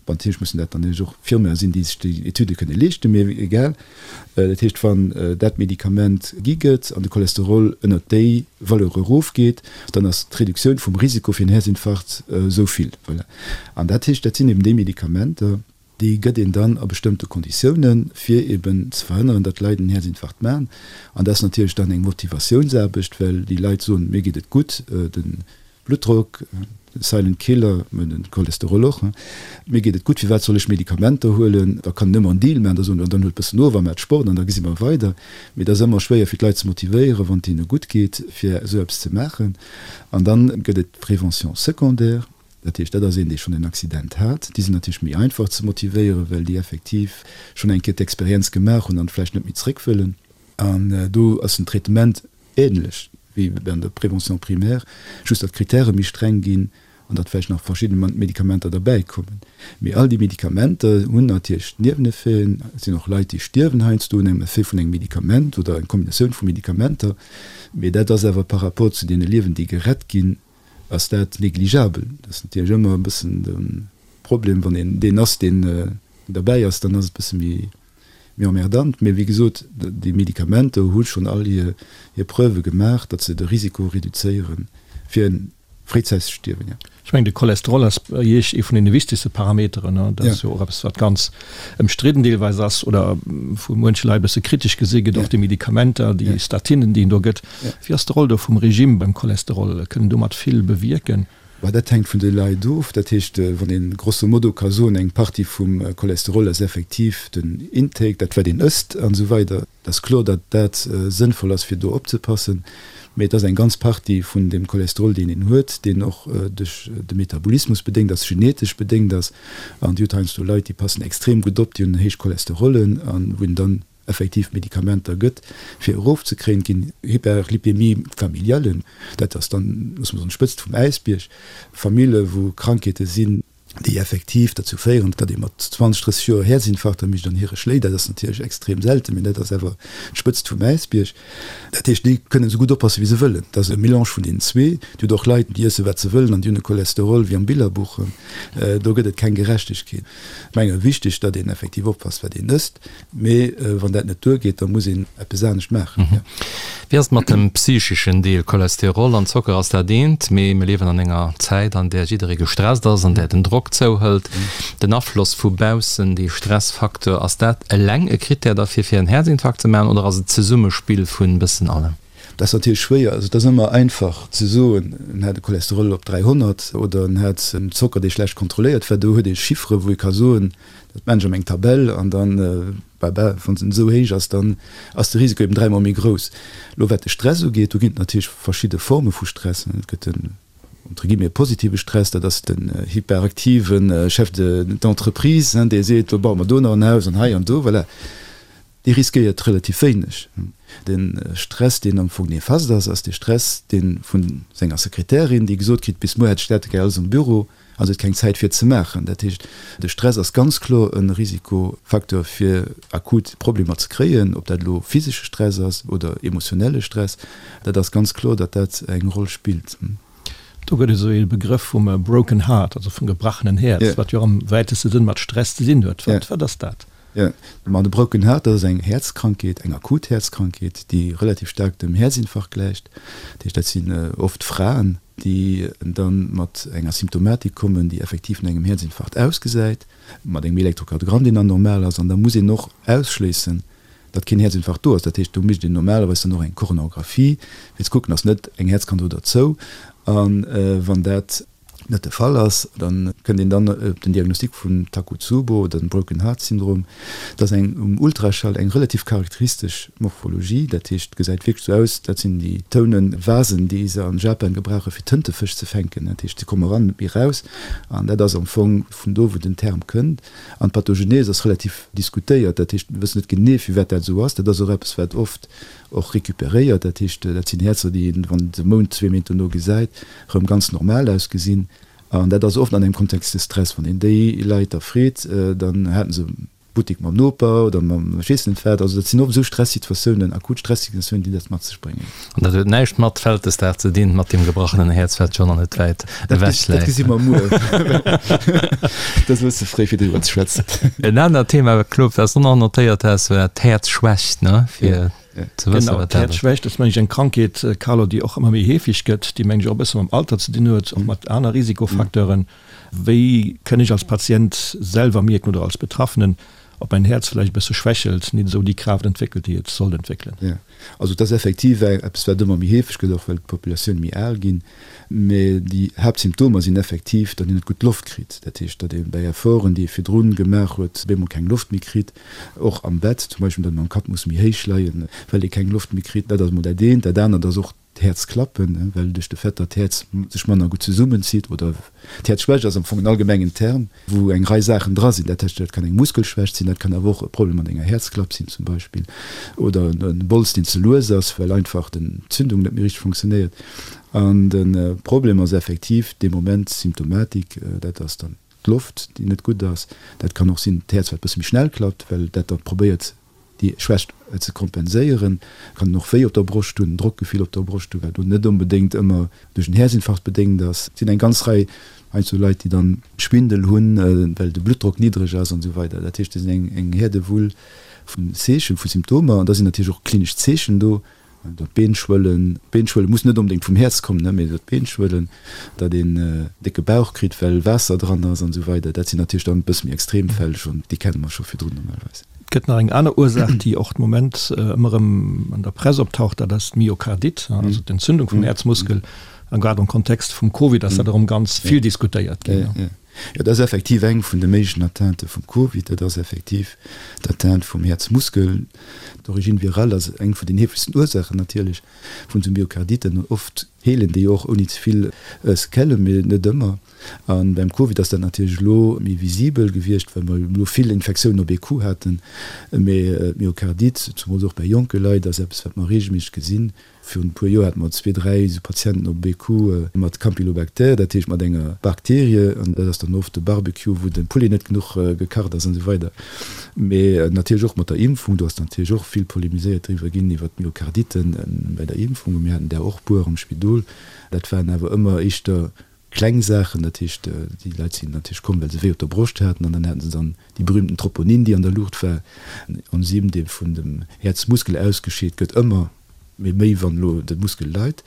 bon, natierlech mussen dat dann och Firmae sinn, déi sech déi Etüde kënne leeschten, mee egal, dat heescht, wann dat Medikament gi gëtt an de Cholesterol ënnert déi Valeur erofgeet, dann ass d'Reduktioun vum Risiko fir en Häerzinfarkt esou vill. Voilà. An dat heescht, dat sinn eben déi Medikamenter, Déi gëtt een dann a bestëmmte Konditiounen, fir eben ze verhënneren, datt d'Leit en Häerzinfarkt maachen. An dat ass natierlech dann eng Motivatiounsaarbecht, well déi Leit soen, mir geet et gutt, de Bluttdrock, de Silent Killer, mä de Cholesterol och, mir geet et gutt, firwat soll ech Medikamenter huelen? Da kann een ëmmer en Deal maachen, da soen, dann huelt e bëssen of a maacht Sport an da gesi mer weider. Mee et ass ëmmer schwéier fir d'Leit ze motivéieren, wann et hinne gutt geet, fir esou eppes ze maachen. An dann gëtt et d'Prévention secondaire. Dat heescht, dat ass een, dee schonn en Accident hat. Déi sinn natierlech méi einfach ze motivéieren, well déi effektiv schonn eng Kéier d'Experienz gemaach hunn an vläicht net méi zréck wëllen. An do ass den Traitement änlech wéi an der Prévention primaire, just datt d'Kritäre méi streng ginn an datt vläicht nach verschidde Medikamenter derbäikommen. Mee all déi Medikamenter hunn natierlech Nieweneffeten. Et sinn och Leit, déi stierwen heiansdo un engem Effet vun engem Medikament oder eng Kombinatioun vu Medikamenter. Mee dat ass awer par rapport zu deene Liewen, déi gerett ginn, ass dat négligeabel. Dat ass natierlech ëmmer e bëssen de Problem, wann een deen ass, deen derbäi ass, dann ass et e bësse méi emmerdant. Mee wéi gesot, déi Medikamenter hu schonn all hir Preuve gemaach, datt se de Risiko reduzéiere fir e fréizäitegt Stierwen, jo. Ech mengen, de Cholesterol ass bei Iech ee vun deene wichtegste Parameteren. Dat ass jo och eppes, wat ganz ëmstridden deelweis ass oder vu muenche Leit e bësse kritesch gesi gëtt, och déi Medikamenter, déi Statinen, déi een do gëtt. Wéi ass de Roll do vum Regime beim Cholesterol? Kënnt en domat vill bewierken? Bah, dat hänkt vun de Leit of. Dat heescht, wann een grosso modo ka soen, eng Partie vum Cholesterol ass effektiv den Intake, dat wat een ësst an esou weider. Et ass kloer, datt dat sënnvoll ass fir do opzepassen, mee et ass eng ganz Partie vun dem Cholesterol deen een huet, deen och duerch de Metabolismus bedéngt ass, genetesch bedéngt ass. An Dir hutt heiansdo Leit, déi passen extrem gutt op, déi hunn héich Cholesterollen an wou een dann effektiv Medikamenter gëtt, fir erofzekréien. Et ginn Hyperlipémie familialen, dat ass dann, loosse mer soen, d'Spëtzt vum Äisbierg, Famille wou Krankheete sinn, déi effektiv derzou féieren, datt ee mat 20, 30 Joer Häerzinfarkter mécht an hire schléit. Dat ass natierlech extrem selten, mee dat ass awer d'Spëtzt vum Äisbierg. Dat heescht, déi kënnen esou gutt oppasse wéi se wëllen. Dat ass e Melange vun deenen zwee. Dir hutt och Leit, déi iesse wat se wëllen an déi hunn e Cholesterol wéi am Billerbuch. Do gëtt et keng Gerechtegkeet. Ech menge wichteg, datt een effektiv oppasst, wat een ësst. Mee wann dat net duergeet, da muss een eppes anescht maachen. Wéi ass et mat dem psycheschen Deel? Cholesterol an Zocker ass dat eent, mee mir liewen an enger Zäit, an där jidderee gestresst ass, an där den Drock zouhëlt. Den Afloss vu baussen, dee Stressfacteur, ass dat eleng e Krittär derfir, fir en Häerzinfarkt ze maachen, oder ass et d'Zesummespill vun bëssen allem? Dat ass natierlech schwéier. Also et ass ëmmer einfach ze soen, en hat e Cholesterol op 300 oder en hat en Zocker, dee schlecht kontrolléiert war. Do huet ee Chiffere wou ee ka soen, dat maan ech an meng Tabell an dann, bah, bah, wann se esou héich ass, dann ass de Risiko eben dräimol méi grouss. Elo wat de Stress ugeet, do ginn et natierlech verschidde Forme vu Stress. Et gëtt den, entre guillemets, positive Stress, dat ass den hyperaktive Chef d'entreprise, dee seet, lo baue mer do nach en Haus an hei an do, voilà. Dee riskéiert relativ wéineg. De Stress, deen am Fong nefast ass, ass de Stress, dee vun senger Sekretärin, déi gesot kritt, bis muer hätt ech dat gär alles am Büro. A se huet keng Zäit fir et ze maachen. Dat heescht, de Stress ass ganz kloer e Risikofacteur fir akut Problemer ze kréien, ob dat elo physesche Stress ass oder emotionelle Stress. Dat ass ganz kloer, datt dat eng Roll spillt. Do gëtt et esou ee Begrëff vum broken heart, also vum gebrachenen Häerz, wat jo och am wäiteste Sënn mat Stress ze dinn huet. Wat, wat ass dat? Jo, ma de broken heart, dat ass eng Häerzkrankheet, eng akut Häerzkrankheet, déi relativ staark dem Häerzinfarkt gläicht. Dat heescht, dat sinn oft Fraen, déi da mat enger Symptomatik kommen, déi effektiv no engem Häerzinfarkt ausgesäit, mat engem Elektrokardiogramm, deen dann normal ass. An da muss een och ausschléissen, datt keen Häerzinfarkt do ass. Dat heescht, do mécht een normalerweis dann och eng Koronarographie, fir ze kucken, ass net eng Häerzkrankheet do derzou. A wann dat net de Fall ass, da kënnt een dann op den Diagnostic vum Takotsubo oder dem Broken Heart Syndrom. Dat ass eng um Ultraschall eng relativ charakteristesch Morphologie, dat heescht, et gesäit wierklech esou aus, dat sinn déi tounen Vasen, déi se an Japan gebrauche fir Tëntefësch ze fänken. Dat heescht, se komme eran, net méi eraus. An dat ass am Fong vun do, wou den Term kënnt. An d'Pathogenese ass relativ diskutéiert, dat heescht, mir wëssen net genee, firwat dat esou ass. Dat ass och eppes, wat oft och recuperéiert, dat heescht, dat sinn Häerzer, déi een, wann een se e Mount, zwee Méint dono gesäit, erëm ganz normal ausgesinn. An dat ass oft an engem Kontext de Stress. Wann een déi Leit da freet, dann haten se Buttek mam Noper oder mam ech weess net wat. Also dat sinn oft esou Stressituatiounen, akut Stressituatiounen, déi dat mat sech bréngen. An dat huet näischt mat Vältesdag ze dinn, mat deem gebrachenen Häerz, wat scho nach net wäit ewech läit. Dat gesi mer muer. Dat ass e bësse fréi, fir driwwer ze schwätzen. En anert Thema, Claude, wat s du nach notéiert has, war d'Häerzschwächt, ne? Fir ze wëssen, Genau, wat dat ass. D'Häerzschwächt ass, meng ech, eng Krankheet, Carlo, déi och ëmmer méi heefeg gëtt, déi, meng ech, och e bësse mam Alter ze dinn huet, och mat aner Risikofacteuren. Wéi kënn ech als Patient selwer mierken oder als Betraffenen, ob mäin Häerz vläicht e bësse schwächelt, nit esou déi Kraaft entwéckelt, déi et sollt entwéckelen? Jo, also et ass effektiv eppes, wat ëmmer méi heefeg gëtt, och well d'Populatioun méi al ginn. Mee déi Haaptsymptomer sinn effektiv, datt een net gutt Loft kritt. Dat heescht, datt ee bäi Efforten, déi ee virdrun gemaach huet, op eemol keng Loft méi kritt. Och am Bett zum Beispill, datt een mam Kapp muss méi héich leien, well ee keng Loft méi kritt. Dat ass emol dat eent. Dat anert ass och d'Häerzklappen, well duerch de Fait, datt d'Häerz sech manner gutt zesummenzitt oder d'Häerzschwächt ass am Fong en allgemengen Term, wou eng Rei Saachen dra sinn. Dat heescht, dat kann eng Muskelschwächt sinn, dat kann awer och e Problem mat enger Häerzklapp sinn zum Beispill oder e Bols, deen ze lues ass, well einfach d'Entzündung net méi richteg funktionéiert. An de Problem ass effektiv dee Moment d'Symptomatik, dat ass dann d'Loft, déi net gutt ass. Dat kann och sinn d'Häerz, wat e bësse méi schnell klappt, well dat da probéiert déi Schwächt ze kompenséieren. Kann en och Wéi op der Broscht hunn, en Drockgefill op der Broscht hunn, wat elo net onbedéngt ëmmer duerch en Häerzinfarkt bedéngt ass. Et sinn eng ganz Rei heiansdo Leit, déi dann Schwindel hunn, well de Bluttdrock niddreg ass an esou weider. Dat heescht, et sinn eng Häerdewull vun Zeechen, vu Symptomer an da sinn natierlech och klinesch Zeechen do. Datt d'Been schwëllen, d'Been schwëllen muss net onbedéngt vum Häerz kommen, mee datt d'Been schwëllen, datt een décke Bauch kritt, well Waasser dran ass an esou weider, dat sinn natierlech dann e bësse méi extrem Fäll schonn, déi kenne mer scho virdrun normalerweis. Et gëtt nach eng aner Ursaach, déi och de Moment ëmmer erëm an der Press optaucht, dat ass d'Myokardite, also d'Entzündung vum Häerzmuskel. A grad am Kontext vum Covid ass dat erëm ganz vill diskutéiert ginn. Jo, dat ass effektiv eng vun de méiglechen Atteintë vum Covid. Dat ass effektiv d'Atteinte vum Häerzmuskel. D'Origine virale ass eng vun den heefegsten Ursaachen natierlech vun esou Myokarditen. Oft heelen déi och ouni ze vill Sequellen, mee net ëmmer. A beim Covid ass dat natierlech elo méi visibel gewiescht, well mer elo vill Infektiounen op ee Coup haten. Mee d'Myokardite, zumools och bäi jonke Leit, ass eppes, wat mer reegelméisseg gesinn. Virun e puer Joer hate mer zwee, dräi esou Patienten op BQ mat Campylobacter, dat heescht mat enger Bakterie, an dat ass dann oft de Barbecue, wou de Poulet net genuch gekacht ass an esou weider. Mee natierlech och mat der Impfung, do ass natierlech och vill polemiséiert driwwer ginn, iwwer d'Myokarditen bei der Impfung. Mir haten där och puer am Spidol. Dat waren awer ëmmer éischter Kleng Saachen, dat heescht, déi Leit sinn natierlech komm, well se wéi op der Broscht haten an dann haten se dann déi berühmten Troponin, déi an der Luucht war, en Enzym, dee vun dem Häerzmuskel ausgescheet gëtt, ëmmer méi méi, wann elo de Muskel leit,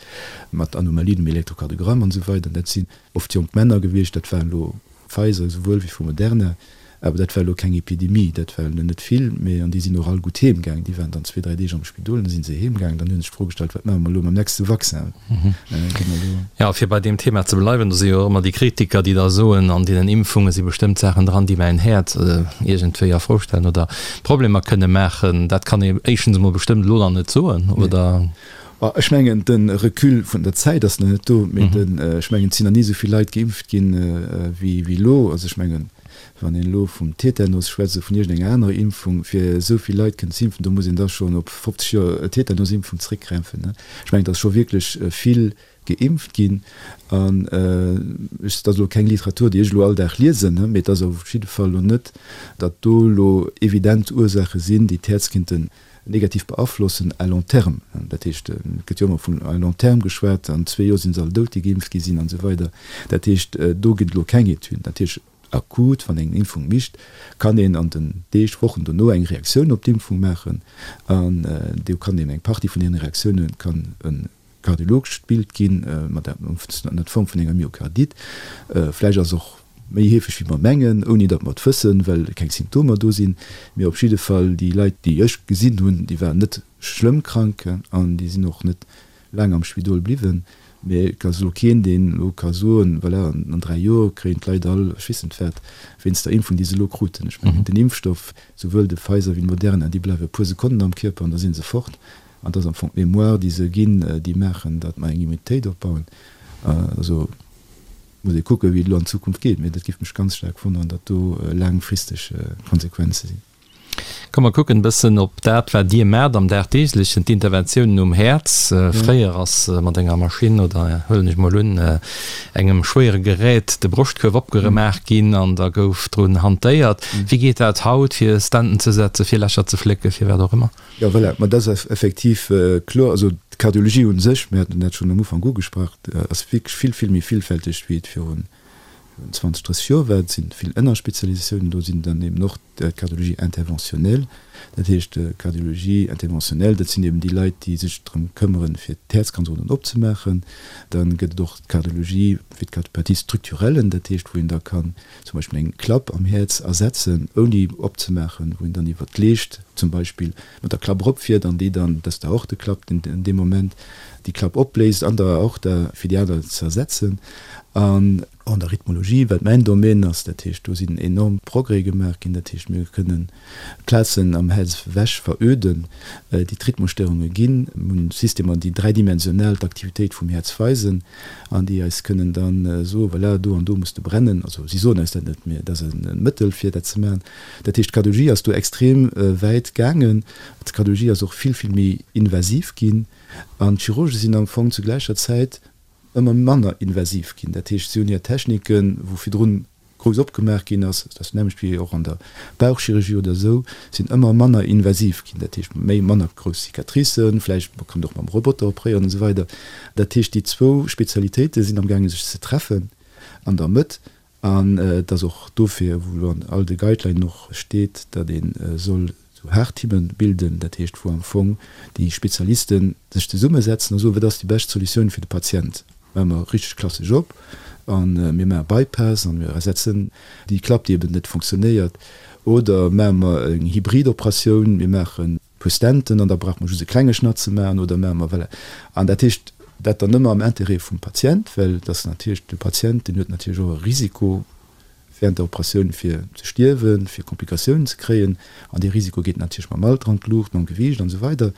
mat Anomalien um Elektrokardiogramm an esou weider. Dat sinn oft jonk Männer gewiescht, dat waren elo Pfizer esouwuel wéi vu Moderna, awer dat war elo keng Epidemie, dat war elo net vill, mee an déi sinn och all gutt heem gaang. Déi waren dann zwee, dräi Deeg am Spidol, dann si se heem gaang. Dann hu sech d'Fro gestallt, wat maache mer elo mam nächste Vaccin? Gi mer elo. Jo, fir bei deem Thema ze bleiwen, do si jo och ëmmer déi Kritiker, déi da soen, an deenen Impfunge si bestëmmt Saachen dran, déi mäin Häerz iergendwéi a Fro stellen oder Problemer kënne maachen. Dat kann ee éischtens emol bestëmmt elo nach net soen, oder? Ech mengen, de Recul vun der Zäit ass nach net do, mee ech mengen, et sinn nach ni esou vill Leit geimpft ginn, wéi elo. Also ech mengen. Wann een elo vum Tetanus schwätzt oder vun iergendenger anerer Impfung, fir esou vill Leit kënnen ze impfen, do muss een da schonn op 50 Joer Tetanusimpfung zeréckgräifen. Ech mengen, et ass scho wierklech vill geimpft ginn. An ech, dat ass elo keng Literatur, déi ech elo all Dag liesen, mee et ass op jidde Fall elo net, datt do elo evident Ursaache sinn, déi d'Häerz kinnten negativ beaflossen à long terme. Dat heescht, et gëtt jo ëmmer vun à long terme geschwat, an zwee Joer si se all dout, déi geimpft gi sinn an esou weider. Dat heescht, do ginn et elo keng Etüden. Natierlech akut, wann een eng Impfung micht, kann een an den Deeg, Wochen dono eng Reaktioun op d'Impfung maachen an do kann een eng Partie vun deene Reaktioune kann e kardiologescht Bild ginn, mat ënner Form vun enger Myokardite. Vläicht ass och méi heefeg wéi mer mengen, ouni datt mer et wëssen, well keng Symptomer do sinn. Mee op jidde Fall déi Leit, déi ech gesinn hunn, déi waren net schlëmm krank an déi sinn och net laang am Spidol bliwwen. Mee et ass elo keen, deen elo ka soen, voilà, an 3 Joer kréien d'Leit all ech weess net wat wéinst der Impfung, déi se elo kruten. Ech mengen, den Impfstoff, souwuel de Pfizer wéi de Moderna, déi bleiwe e puer Sekonnen am Kierper an da si se fort. An et ass am Fong d'Mémoire, déi se ginn, déi maachen, datt mer eng Immunitéit opbauen. Also muss ee kucken, wéi et elo an Zukunft geet. Mee dat géif mech ganz staark wonneren, datt do laangfristeg Konsequenze sinn. Komm mer kucken e bëssen op dat, wat Dir maacht am Dagdeeglechen, d'Interventiounen um Häerz. Fréier ass mat enger Maschinn oder, huelen ech mol un, engem schwéiere Gerät de Broschtkuerf opgeremaach ginn an da gouf drun hantéiert. Wéi geet dat haut, fir Stenten ze setzen, fir Lächer ze flécken, fir wat och ëmmer? Jo, voilà, ma dat ass effektiv kloer. Also d'Kardiologie u sech, mir haten dat schonn am Ufank ugesprach, ass wierklech vill, vill méi villfälteg, wéi et virun 20, 30 Joer war. Et si vill Ënnerspezialisatiounen do, sinn dann eben och d'Cardiologie interventionnelle. Dat heescht, d'Cardiologie interventionnelle, dat sinn eben déi Leit, déi sech drëm këmmeren, fir d'Häerzkanzeren opzemaachen. Da gëtt et och d'Cardiologie fir d'Cardiopathie structurelle, dat heescht, wou een da kann zum Beispill eng Klapp am Häerz ersetzen, ouni opzemaachen, wou een dann iwwer d'Leescht zum Beispill mat der Klapp eropfiert an déi dann, dat ass d'Aorteklapp, in deem Moment déi Klapp opbléist an der Aorta, fir déi aner ze ersetzen. An an der Rhythmologie, wat mäin Domaine ass, dat heescht, do sinn enorm Progrès gemaach ginn, dat heescht, mir kënnen Plazen am Häerz ewech veröden, déi d'Rhythmusstörunge ginn. Mir hunn Systemer, déi dräidimensional d'Aktivitéit vum Häerz weisen an déi eis kënnen da soen, voilà, do an do muss de brennen. Also si soen eis dat net, mee et ass e Mëttel, fir dat ze maachen. Dat heescht, d'Kardiologie ass do extrem wäit gaangen. D'Kardiologie ass och vill, vill méi invasiv ginn an d'Chirurge sinn am Fong zu gläicher Zäit ëmmer manner invasiv ginn. Dat heescht, si hunn hir Techniken, wou virdrun grouss opgemaach ginn ass, dat ass d'nämmlecht wéi och an der Bauchchirurgie oder esou, sinn ëmmer manner invasiv ginn, dat heescht méi manner grouss Cicatricen, vläicht man kann och mam Roboter opréieren an esou weider. Dat heescht déi zwou Spezialitéite sinn amgaange sech ze treffen an der Mëtt an et ass och dofir, wou elo an all de Guidelinen och steet, datt ee soll sou Haarteamen bilden, dat heescht wou am Fong déi Spezialisten sech zesummesetzen a soen, wat ass déi bescht Solutioun fir de Patient, maache mer richteg klassesch op a mir maache Bypass a mir ersetzen déi Klapp, déi eben net fonctionnéiert, oder maache mer eng Hybrid-Operatioun, mir maachen e puer Stenten an da brauche mer just e klenge Schnatt ze maachen, oder maache mer, voilà. An dat heescht, dat dann ëmmer am Intérêt vum Patient, well et ass natierlech de Patient, deen huet natierlech och e Risiko, während der Operatioun fir ze stierwen, fir Komplikatiounen ze kréien, an dee Risiko geet natierlech mam Alter an d'Luucht, mam Gewiicht an esou weider.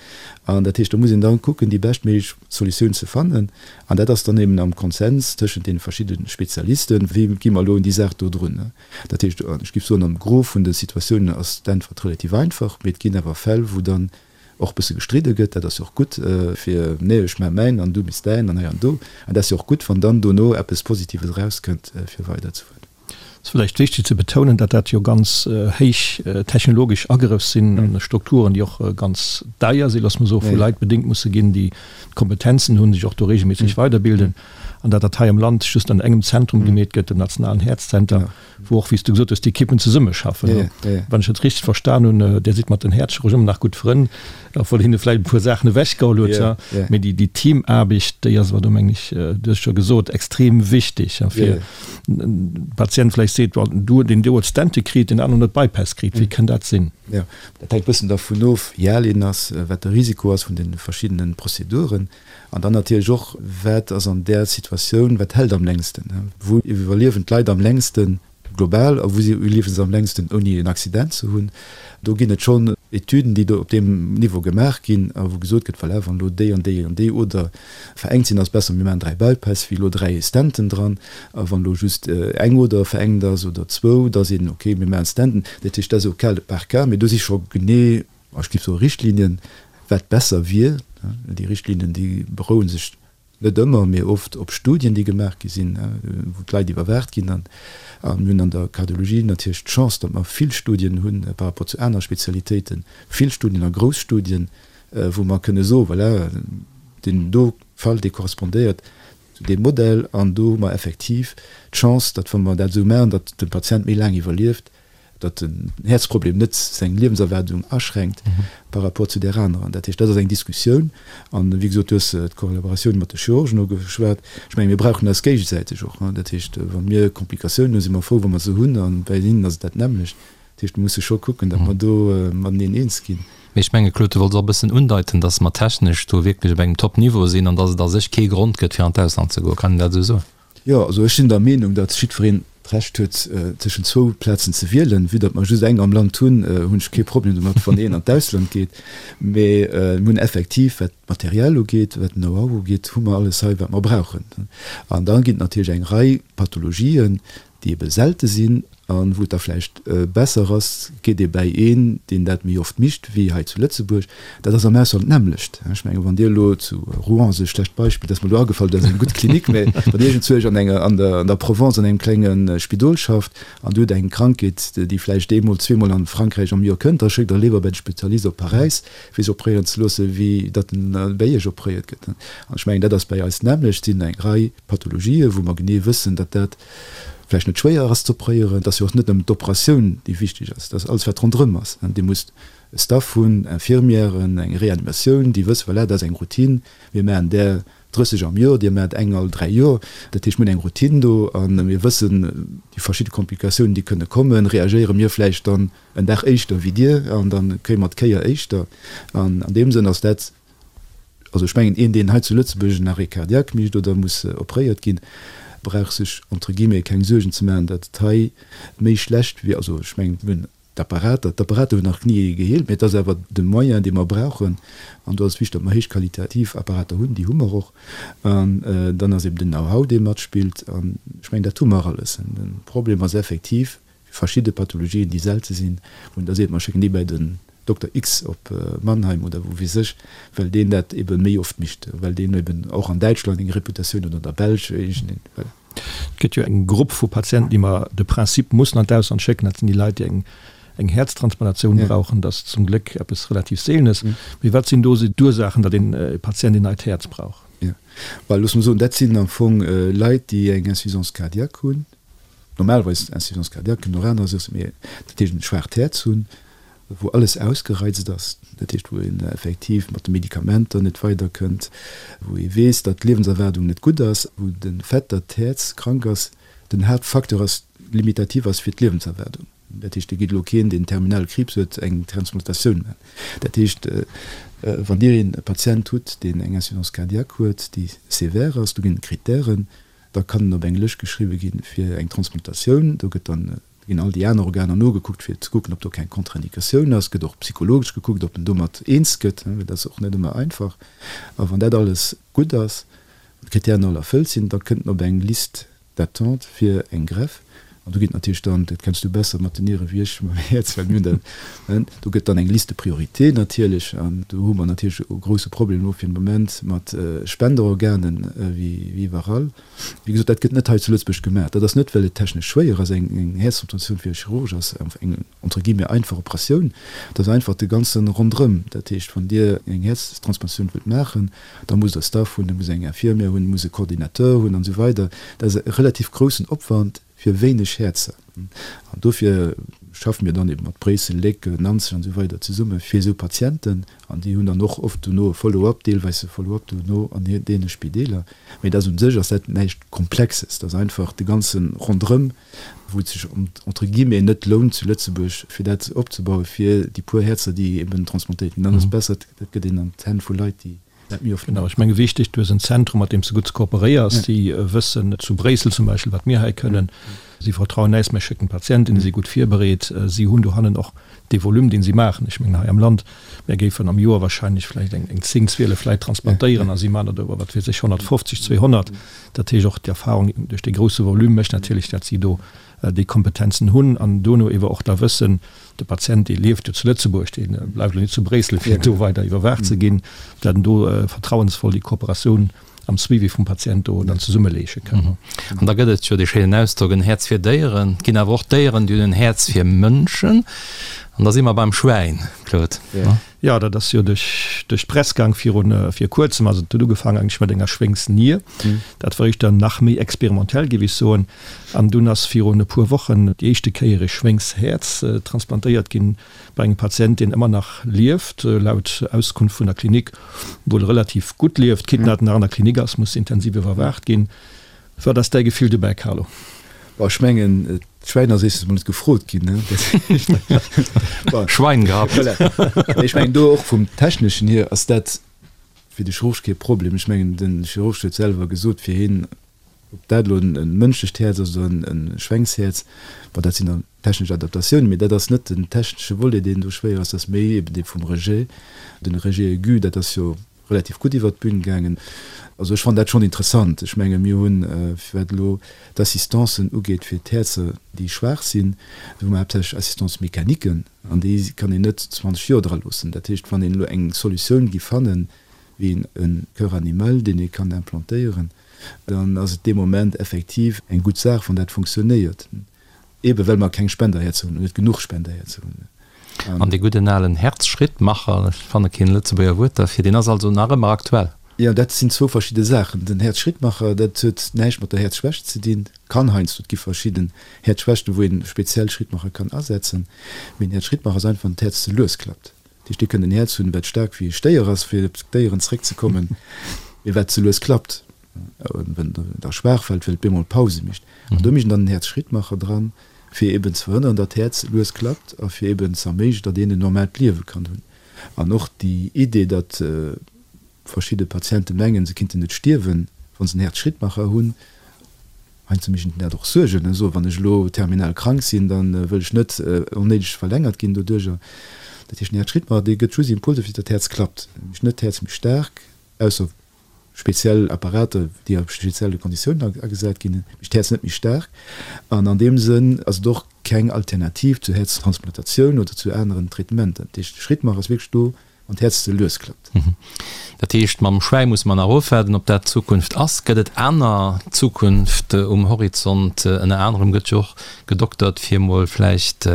An dat heescht, do muss een dann kucken, déi beschtméiglech Solutioun ze fannen, an dat ass dann eben am Konsens tëschent deene verschidde Spezialisten, wéi gi mer elo un déi Saach do drun. Dat heescht, ech géif soen, am Gros vun de Situatiounen ass d'Äntwert relativ einfach, mee et ginn awer Fäll, wou dann och bësse gestridde gëtt, dat ass jo och gutt fir, nee ech maache mäin an du méchs däin an hei an do, an dat ass jo och gutt, wann dann dono eppes Positives erauskënnt fir weiderzefueren. Et ass vläicht wichteg ze betounen, datt dat jo ganz héich technologesch Agrëff sinn an Strukturen, déi och ganz deier sinn, loosse mer soen, vu Leit bedéngt musse ginn, déi d'Kompetenzen hunn, sech och do regelméisseg weiderbilden, an datt dat hei am Land just an engem Zentrum gemeet gëtt, dem nationalen Häerzzenter. wou och, wéi s du gesot hues, d'Ekippen zesummeschaffen. Wann ech dat richteg verstan hunn, Dir sidd mat den Häerzchirurgen ëmmer nach gutt Frënn, obwuel hinne vläicht e puer Saachen ewechgeholl huet. Mee déi Teamaarbecht, déi ass awer do, mengen ech, du hues et scho gesot, extrem wichteg, fir de Patient vläicht seet, bon, du, deen do huet Stente kritt, deen aneren huet Bypass kritt. Wéi kënn dat sinn? Jo, dat hänkt e bëssen dervun of, wéi al een ass, wat de Risiko ass vun de verschiddene Prozeduren. An dann natierlech och, wat ass an där Situatioun, wat hält am längsten? Wou iwwerliewen d'Leit am längsten global a wou iwwerliewe se am längsten ouni en Accident ze hunn? Do ginn et schonn. Etüden, déi do op deem Niveau gemaach ginn a wou gesot gëtt, voilà, wann elo déi an déi an déi Oder verengt sinn, ass besser, mir maachen 3 Bypass wéi elo 3 Stenten dran. A wann elo just eng Oder verengt ass oder zwou, da seet een, okay, mir maachen Stenten. Dat heescht, dat ass au cas par cas, mee do si scho genee, ech géif soe Richtlinien, wat besser wier. Déi Richtlinien, déi beroue sech Net ëmmer, mee oft op Studien, déi gemaach gi sinn, wou d'Leit iwwerwaacht ginn. A mir hunn an der Kardiologie natierlech d'Chance, datt mer vill Studien hunn par rapport zu aner Spezialitéiten, vill Studien a grouss Studien, wou mer kënne soen, voilà, deen do Fall, dee korrespondéiert zu deem Modell. An do hu mer effektiv d'Chance, datt, wa mer dat esou maachen, datt de Patient méi laang iwwerlieft. datt den Häerzproblem net seng Liewenserwaardung aschränkt par rapport zu där anerer. Dat heescht, dat ass eng Diskussioun. An, wéi gesot, du hues d'Kollaboratioun mat de Chirurgen ugeschwat. Ech menge mir brauchen eis géigesäiteg och. Dat heescht, wa mir Komplikatiounen hunn, si mer frou, wa mer se hunn, a bei hinnen ass et dat nämmlecht. Dat heescht, mir musse scho kucken, datt mer do mateneen eens ginn. Mee ech menge, Claude, du wollts och e bëssen undeiten, datt mer technesch do wierklech op engem Top-Niveau sinn an datt et a sech kee Grond gëtt, fir an d'Ausland ze goen. Kann een dat esou soen? Jo, also ech sinn der Meenung, datt jiddwereen d'Recht huet, tëschent zwou Plazen ze wielen. Vue datt mer just eng am Land hunn, hunn ech kee Problem domat, wann een an d'Ausland geet. Mee mir hunn effektiv, wat d'Material ugeet, wat den Know-how ugeet, hu mer alles hei, wat mer brauchen. An da ginn et natierlech eng Rei Pathologien, déi ebe selte sinn a wou et da vläicht besser ass, geet ee bäi een, deen dat méi oft micht wéi hei zu Lëtzebuerg. Dat ass am Ausland d'nämmlecht. Ech mengen, wann Dir elo zu Rouen, ass e schlecht Beispill, dat ass mer elo agefall, dat ass eng gutt Klinik, mä wann Dir iergendzwousch an enger, an der, an der Provence an engem klenge Spidol schafft an Dir hutt eng Krankheet, déi vläicht eemol, zweemol an Frankräich am Joer kënnt, da schéckt Der léiwer bäi de Spezialist op Paräis, fir sech opréieren ze loossen, wéi datt en bäi Iech opréiert gëtt. An ech mengen, dat ass bäi eis d'nämmlecht. Et sinn eng Rei Pathologien, wou mer genee wëssen, datt dat vläicht net schwéier ass ze opréieren. Et ass jo och net nëmmen d'Operatioun, déi wichteg ass, et ass alles, wat ronderëm ass. Dir musst e Staff hunn, Infirmièren, eng Reanimatioun, déi wëssen, voilà, dat ass eng Routine, mir maachen där 30 am Joer, dir maacht eng all dräi Joer. Dat heescht, mir hunn eng Routine do a mir wëssen, déi verschidde Komplikatiounen, déi kënne kommen, reagéiere mir vläicht dann en Dag éischter wéi dir an da kréie mer d'Kéier éischter. An an deem Sënn ass dat Also ech mengen, een deen hei zu Lëtzebuerg en Arrêt cardiaque mécht oder muss opréiert ginn, brauch sech entre guillemets keng Suergen ze maachen, datt et hei méi schlecht wier. Also ech mengen, mir hunn d'Apparater, d'Apparater hunn nach ni ee geheelt, mä et ass awer de Moyen, dee mer brauchen. An do ass et wichteg, datt mer héichqualitativ Apparater hunn, déi hu mer och. An dann ass eben den Know-how, dee matspillt. An ech mengen, dat hu mer alles. De Problem ass effektiv, verschidde Pathologien, déi selte sinn, wou een da seet, mer schécken déi bäi den Dokter X op Mannheim oder wou weess ech, well deen dat ebe méi oft mécht, well deen eben och an Däitschland eng Reputatioun huet oder an der Belsch iergendeen, voilà. Et gëtt jo eng Grupp vu Patienten, déi mer de Principe mussen an d'Ausland schécken, dat sinn déi Leit, déi eng eng Häerztransplantatioun brauchen. Dat ass zum Gléck eppes relativ Seelenes. Mee wat sinn do esou d'Ursaachen, datt een Patient een neit Häerz brauch? Jo, well loosse mer soen, dat sinn am Fong Leit, déi eng Insuffisance cardiaque hunn, Normalerweis Insuffisance cardiaque, kënnen och aner Sourcen, mee dat heescht en schwaacht Häerz hunn, wou alles ausgereizt ass, dat heescht wou een effektiv mat de Medikamenter net weiderkënnt, wou ee weess, datt d'Liewenserwaardung net gutt ass, wou de Fait, datt d'Häerz krank ass, den Haaptfacteur ass, limitativ ass fir d'Liewenserwaardung. Dat heescht, et geet elo keen, deen terminale Kriibs huet, eng Transplantatioun maachen. Dat heescht, wann Dir een Patient hutt, deen eng Insuffisance cardiaque huet, déi sévère ass, do ginn et Krittären, Da kann en op eng Lëscht geschriwwe gi fir eng Transplantatioun. Do gëtt dann, ginn all déi aner Organer nogekuckt, fir ze kucken, ob do keng Contre-indicatioun ass. Gëtt och psychologesch gekuckt, ob en domat eens gëtt, well dat ass och net ëmmer einfach. A wann dat alles gutt ass, wann d'Kritären all erfëllt sinn, da kënnt en op eng Liste d'attente fir eng Greffe. An do ginn natierlech dann, dat kenns du besser mat den Niere wéi ech mam Häerz, well mir hunn dat, ne, do gëtt dann eng Liste de priorité natierlech. An do hu mer natierlech e grouse Problem elo fir den Moment mat Spenderorganen, wéi iwwerall. Wéi gesot, dat gëtt net hei zu Lëtzebuerg gemaach. Dat ass net, well et technesch schwéier ass. Eng Häerztransplantatioun fir e Chirurg ass eng entre guillemets einfach Operatioun. Dat ass einfach de ganze Ronderëm. Dat heescht, wann Dir eng Häerztransplantatioun wëllt maachen, da musst Der Staff hunn, da musst Der eng Infirmière hunn, musst e Coordinateur hunn an esou weider. Dat ass e relativ groussen Opwand fir wéineg Häerzer. An dofir schaffe mir dann eben mat Bréissel, Léck, Nanzeg an esou weider zesumme fir esou Patienten. An déi hunn dann och oft dono e Follow-up, deelweis e Follow-up dono an deene Spideeler. Mee dat ass un sech ass dat näischt Komplexes. Dat ass einfach de ganze Ronderëm, wou et sech entre guillemets net lount zu Lëtzebuerg, fir dat opzebauen, fir déi puer Häerzer, déi eben transplantéiert ginn. Dann ass et besser, dat gëtt een an d'Hänn vu Leit, déi Dat méi oft. Genau, ech menge wichteg, du hues en Zentrum, mat deem s de gutt kooperéiers. Déi wëssen zu Bréissel zum Beispill, wat mir hei kënnen. Si vertrauen äis, mir schécken d'Patienten, déi si gutt virbereet. Si hunn dohannen och. Dee Volume, deen si maachen, ech mengen hei am Land, mär géifen am Joer wahrscheinlech vläicht eng 10, 12 Leit transplantéieren a si maachen der do, wat weess ech, 150, 200. Dat heescht och d'Erfahrung duerch dee grousse Volume mécht natierlech, dat si do déi Kompetenzen hunn an dono ewer och da wëssen, de Patient, dee lieft jo zu Lëtzebuerg, dee bleift elo net zu Bréissel, fir do weider iwwerwaacht ze ginn, dat en do vertrauensvoll déi Kooperatioun am Suivi vum Patient do dann zesummeleeche kënnen. An da gëtt et jo dee schéinen Ausdrock, en Häerz fir Déieren. Et ginn awer och Déieren, déi hunn en Häerz fir Mënschen. An da si mer beim Schwäin, Claude. Jo, dat ass jo duerch d'Press gaang virun, vir kuerzem. Also et huet ugefaangen eigentlech mat enger Schwéngsnier. Dat war éischter nach méi experimentell, géif ech soen. An dunn ass virun e puer Wochen déi éischte Kéier e Schwéngshäerz transplantéiert ginn bei engem Patient, deen ëmmer nach lieft, laut Auskunft vun der Klinik wuel relativ gutt lieft. Quitte datt en nach an der Klinik ass, muss intensiv iwwerwaacht ginn. Wat ass däi Gefill dobäi, Carlo? Bon, ech mengen, d'Schwäin ass éischtens mol net gefrot ginn, ne? Bon. Schwein gehabt. Voilà. Mee ech mengen, do och vum Techneschen hier ass dat fir de Chirurg kee Problem. Ech mengen, de Chirurg huet selwer gesot, fir hien, ob dat elo e mënschlecht Häerz ass oder e Schwängshäerz, bon, dat sinn dann technesch Adaptatiounen, mee dat ass net den technesche Volet, deen do schwéier ass, dat ass méi eben dee vum Rejet, den Rejet aigu, dat ass jo relativ gutt iwwert d'Bün gaangen. Also ech fannen dat schonn interessant. Ech menge mir hunn, wat elo d'Assistancen ugeet fir d'Häerzer, déi schwaach sinn, do hu mer haaptsächlech Assistance-mécaniquen an déi kann een net 20 Joer dra loossen. Dat heescht, wann een elo eng Solutioun géif fannen, wéi e Cœur animal, deen ee kann implantéieren, dann ass et dee Moment effektiv eng gutt Saach, wann dat funktionéiert. Ebe well mer keng Spenderhäerzer hunn, oder net genuch Spenderhäerzer hunn. An dee gudden alen Herzschrittmacher, ech fanne keen Lëtzebuerger Wuert derfir, deen ass also nach ëmmer aktuell? Jo, dat sinn zwou verschidde Saachen. Den Herzschrittmacher, dat huet näischt mat der Häerzschwächt ze dinn, kann heiansdo, et gi verschidden Häerzschwächten, wou een speziell Schrittmacher kann asetzen, mee en Häerzschrittmacher ass einfach, wann d'Häerz ze lues klappt. Dat heescht, Dir kënnt en Häerz hunn, wat staark wéi e Stéier ass, fir op d'Déieren zeréckzekommen, mee wat ze lues klappt. Wenn da schwaach fällt, well et bemol Pause mécht. An do mécht en dann en Häerzschrittmacher dran, fir eben ze verhënneren, datt d'Häerz lues klappt a fir eben ze erméiglechen, datt een en normaalt Liewe kann hunn. An och déi Idee, datt verschidde Patiente mengen, se kinnten net stierwen, wa se en Häerzschrittmacher hunn, heiansdo mécht een dat och Suergen, soen, wann ech elo terminal krank sinn, da wëll ech net onnéideg verlängert ginn doduercher. Dat heescht, en Häerzschrittmacher, dee gëtt just Impulser, fir datt d'Häerz klappt. E mécht net d'Häerz méi staark, ausser speziell Apparater, déi a spezielle Konditiounen agesat ginn, mécht d'Häerz net méi staark. An an deem Sënn ass et och keng Alternativ zur Häerztransplantatioun oder zu aneren Traitementer. Dat heescht, de Schrittmacher ass wierklech do, wann d'Häerz ze lues klappt. Dat heescht, mam Schwäi musse mer nach ofwaarden, ob dat d'Zukunft ass. Gëtt et aner Zukunft um Horizont? Ënner anerem gëtt jo och gedoktert, fir mol vläicht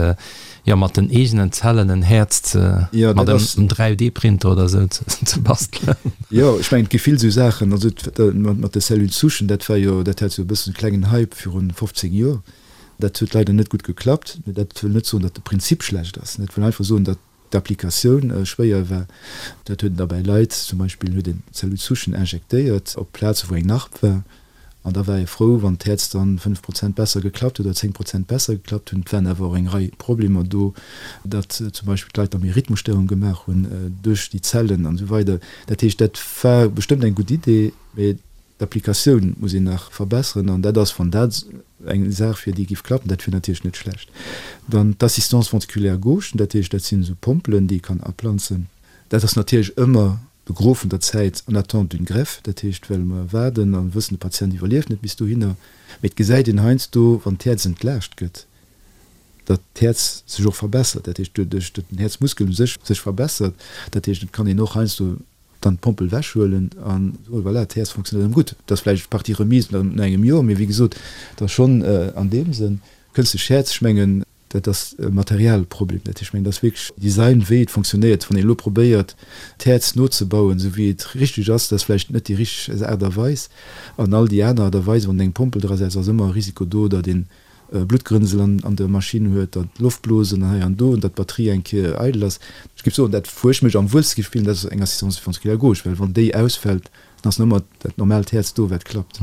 jo mat den eegenen Zellen en Häerz ze ja, mat engem 3D-Printer oder esou ze bastelen. Jo, ech mengen et gi vill esou Saachen. Also mat de Cellules souchen, dat war jo, dat hat jo e bëssen e klengen Hype virun 15 Joer. Dat huet leider net gutt geklappt. Mee dat wëll net soen, datt de Prinzip schlecht ass. Dat wëll einfach soen, datt d'Applikatioun schwéier war. Dat huet een da bäi Leit, zum Beispill huet een Cellules souchen injektéiert op Plaze wou eng Narb war. An da war ee frou, wann d'Häerz dann 5 Prozent besser geklappt huet oder 10 Prozent besser geklappt hunn. Et waren awer och eng Rei Problemer do, datt zum Beispill d'Leit da méi Rhythmusstörung gemaach hunn duerch déi Zellen an esou weider. Dat heescht, dat war bestëmmt eng gutt Idee, mä d'Applikatioun muss een nach verbesseren. An dat ass, wann dat eng Saach wier, déi géif klappen, dat wier natierlech net schlecht. Dann d'Assistance ventriculaire gauche, dat heescht, dat sinn esou Pompelen, déi ee kann aplanzen. Dat ass natierlech ëmmer de Gros vun der Zäit en attente d'une greffe, dat heescht well mer waarden a wëssen, de Patient iwwerlieft net bis dohinner. Mee et gesäit een heiansdo, wann d'Häerz entlaascht gëtt, datt d'Häerz sech och verbessert, dat heescht doduerch, datt den Häerzmuskel u sech sech verbessert. Dat heescht, et kann een och heiansdo dann d'Pompel ewechhuelen a soen, voilà, d'Häerz fonctionnéiert erëm gutt. Dat ass vläicht partie remise no engem Joer, mee wéi gesot, et ass schonn an deem Sënn kënstlech Häerz, ech mengen, Dat ass e Materialproblem. Dat heescht, ech mengen, dat ass wierklech Design, wéi et fonctionnéiert. Wann een elo probéiert, d'Häerz nozebauen, esou wéi et richteg ass, dat ass vläicht net déi richteg Aart a Weis. An all déi aner Aart a Weisen, wann een eng Pompel drasetzt, ass ëmmer e Risiko do, datt een Bluttgrënsel an der Maschinn huet, datt Loftblosen hei an do, an datt d'Batterie eng Kéier eidel ass. Ech géif soen, dat wou ech mech am wuelste géif fillen, dat ass eng Assistance ventriculaire gauche, well wann déi ausfält, Dann ass nëmmer dat normaalt Häerz do, wat klappt.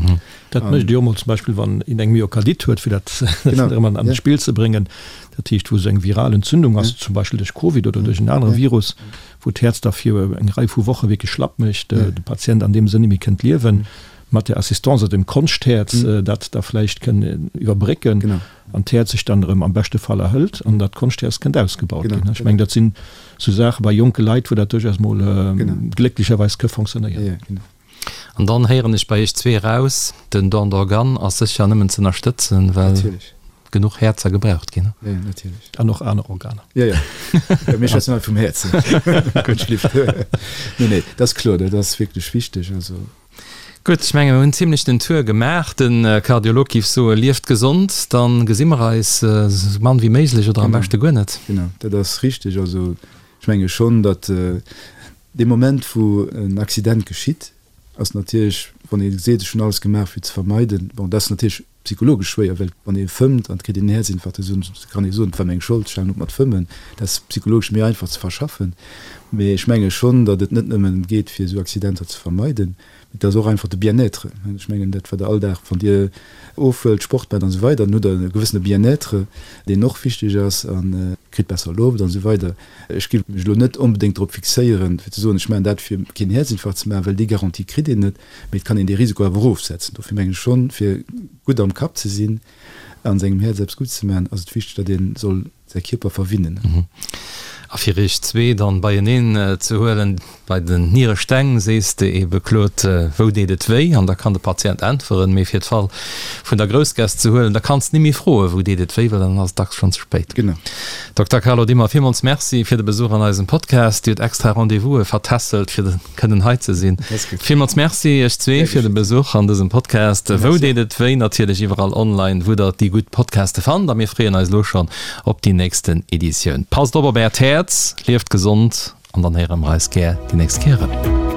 Dat mécht ee jo mol zum Beispill, wann een eng Myokardit huet, fir dat erëm an d'Spill ze bréngen. Dat heescht, wou esou eng viral Entzündung ass, zum Beispill duerch Covid oder duerch en anere Virus, wou d'Häerz da fir eng Rei vu Woche wierklech schlapp mécht, de Patient an deem Sënn net méi kënnt liewen. Mat der Assistance oder dem Konschthäerz dat da vläicht kënn iwwerbrécken an d'Häerz sech dann erëm am beschte Fall erhëlt an dat Konschthäerz kënnt ausgebaut ginn. Ech mengen, dat sinn esou Saache bei jonke Leit, wou dat duerchaus mol glécklecherweis ka fonctionnéieren. An dann héieren ech bei Iech zwee eraus, den Don d'organes ass sécher nëmmen ze ënnerstëtzen, well genuch Häerzer gebraucht ginn. Jo, natierlech. An och aner Organer. Jo, jo. Mir schwätzen hei vum Häerz. Nee, nee, dat ass kloer, dat ass wierklech wichteg. Also. Gutt, ech menge mir hunn zimlech den Tour gemaach. De Kardiolog giff soe, lieft gesond, dann gesi mer eis esou mann wéi méiglech oder am beschte guer net. Genau, dat ass richteg. Also ech menge schonn, datt dee Moment wou en Accident geschitt, ass natierlech, wann ee seet, ech hunn alles gemaach fir ze vermeiden, bon dat ass natierlech psychologesch schwéier, well wann ee fëmmt an et kritt een en Häerzinfarkt, da kann ee soen, et war meng Schold, ech halen op mat fëmmen. Dat ass psychologesch méi einfach ze verschaffen. Mee ech menge schonn, datt et net nëmmen geet, fir esou Accidenter ze vermeiden, mee et ass och einfach de Bien-être. Ech mengen, dat wat Der all Dag, wann Dir ofhuelt, Sport maacht an esou weider, dann hutt Der e gewëssene Bien-être, deen och wichteg ass a kritt besser Loft an esou weider. Ech géif mech elo net onbedéngt drop fixéieren, fir ze soen, ech maachen dat, fir keen Häerzinfarkt ze maachen, well déi Garantie kritt een net. Mee et kann een dee Risiko awer erofsetzen. Dofir mengen ech schonn, fir gutt am Kapp ze sinn a sengem Häerz eppes Gutts ze maachen, ass et wichteg, datt ee soll säi Kierper verwinnen. A fir iech zwee dann beieneen ze huelen, bei den Nieresteng sees de ebe, Claude, wou deet et wéi? An da kann de Patient äntweren. Mee fir d'Fall vun der Groussgäss ze huelen, da kanns de ni méi froen, wou deet et wéi, well dann ass et dacks schonn ze spéit. Genau. Dokter Carlo Dimmer, villmools Merci fir de Besuch an eisem Podcast. Dir hutt extra Rendez-vouse vertässelt, fir kënnen hei ze sinn. Villmools Merci iech zwee fir de Besuch an dësem Podcast. Wou deet et wéi? Natierlech iwwerall online, wou der déi gutt Podcaste fannt. A mir freeën eis elo schonn op déi nächsten Editioun. Passt op op äert Häerz, lieft gesond an dann héiere mer eis gär déi nächst Kéier erëm.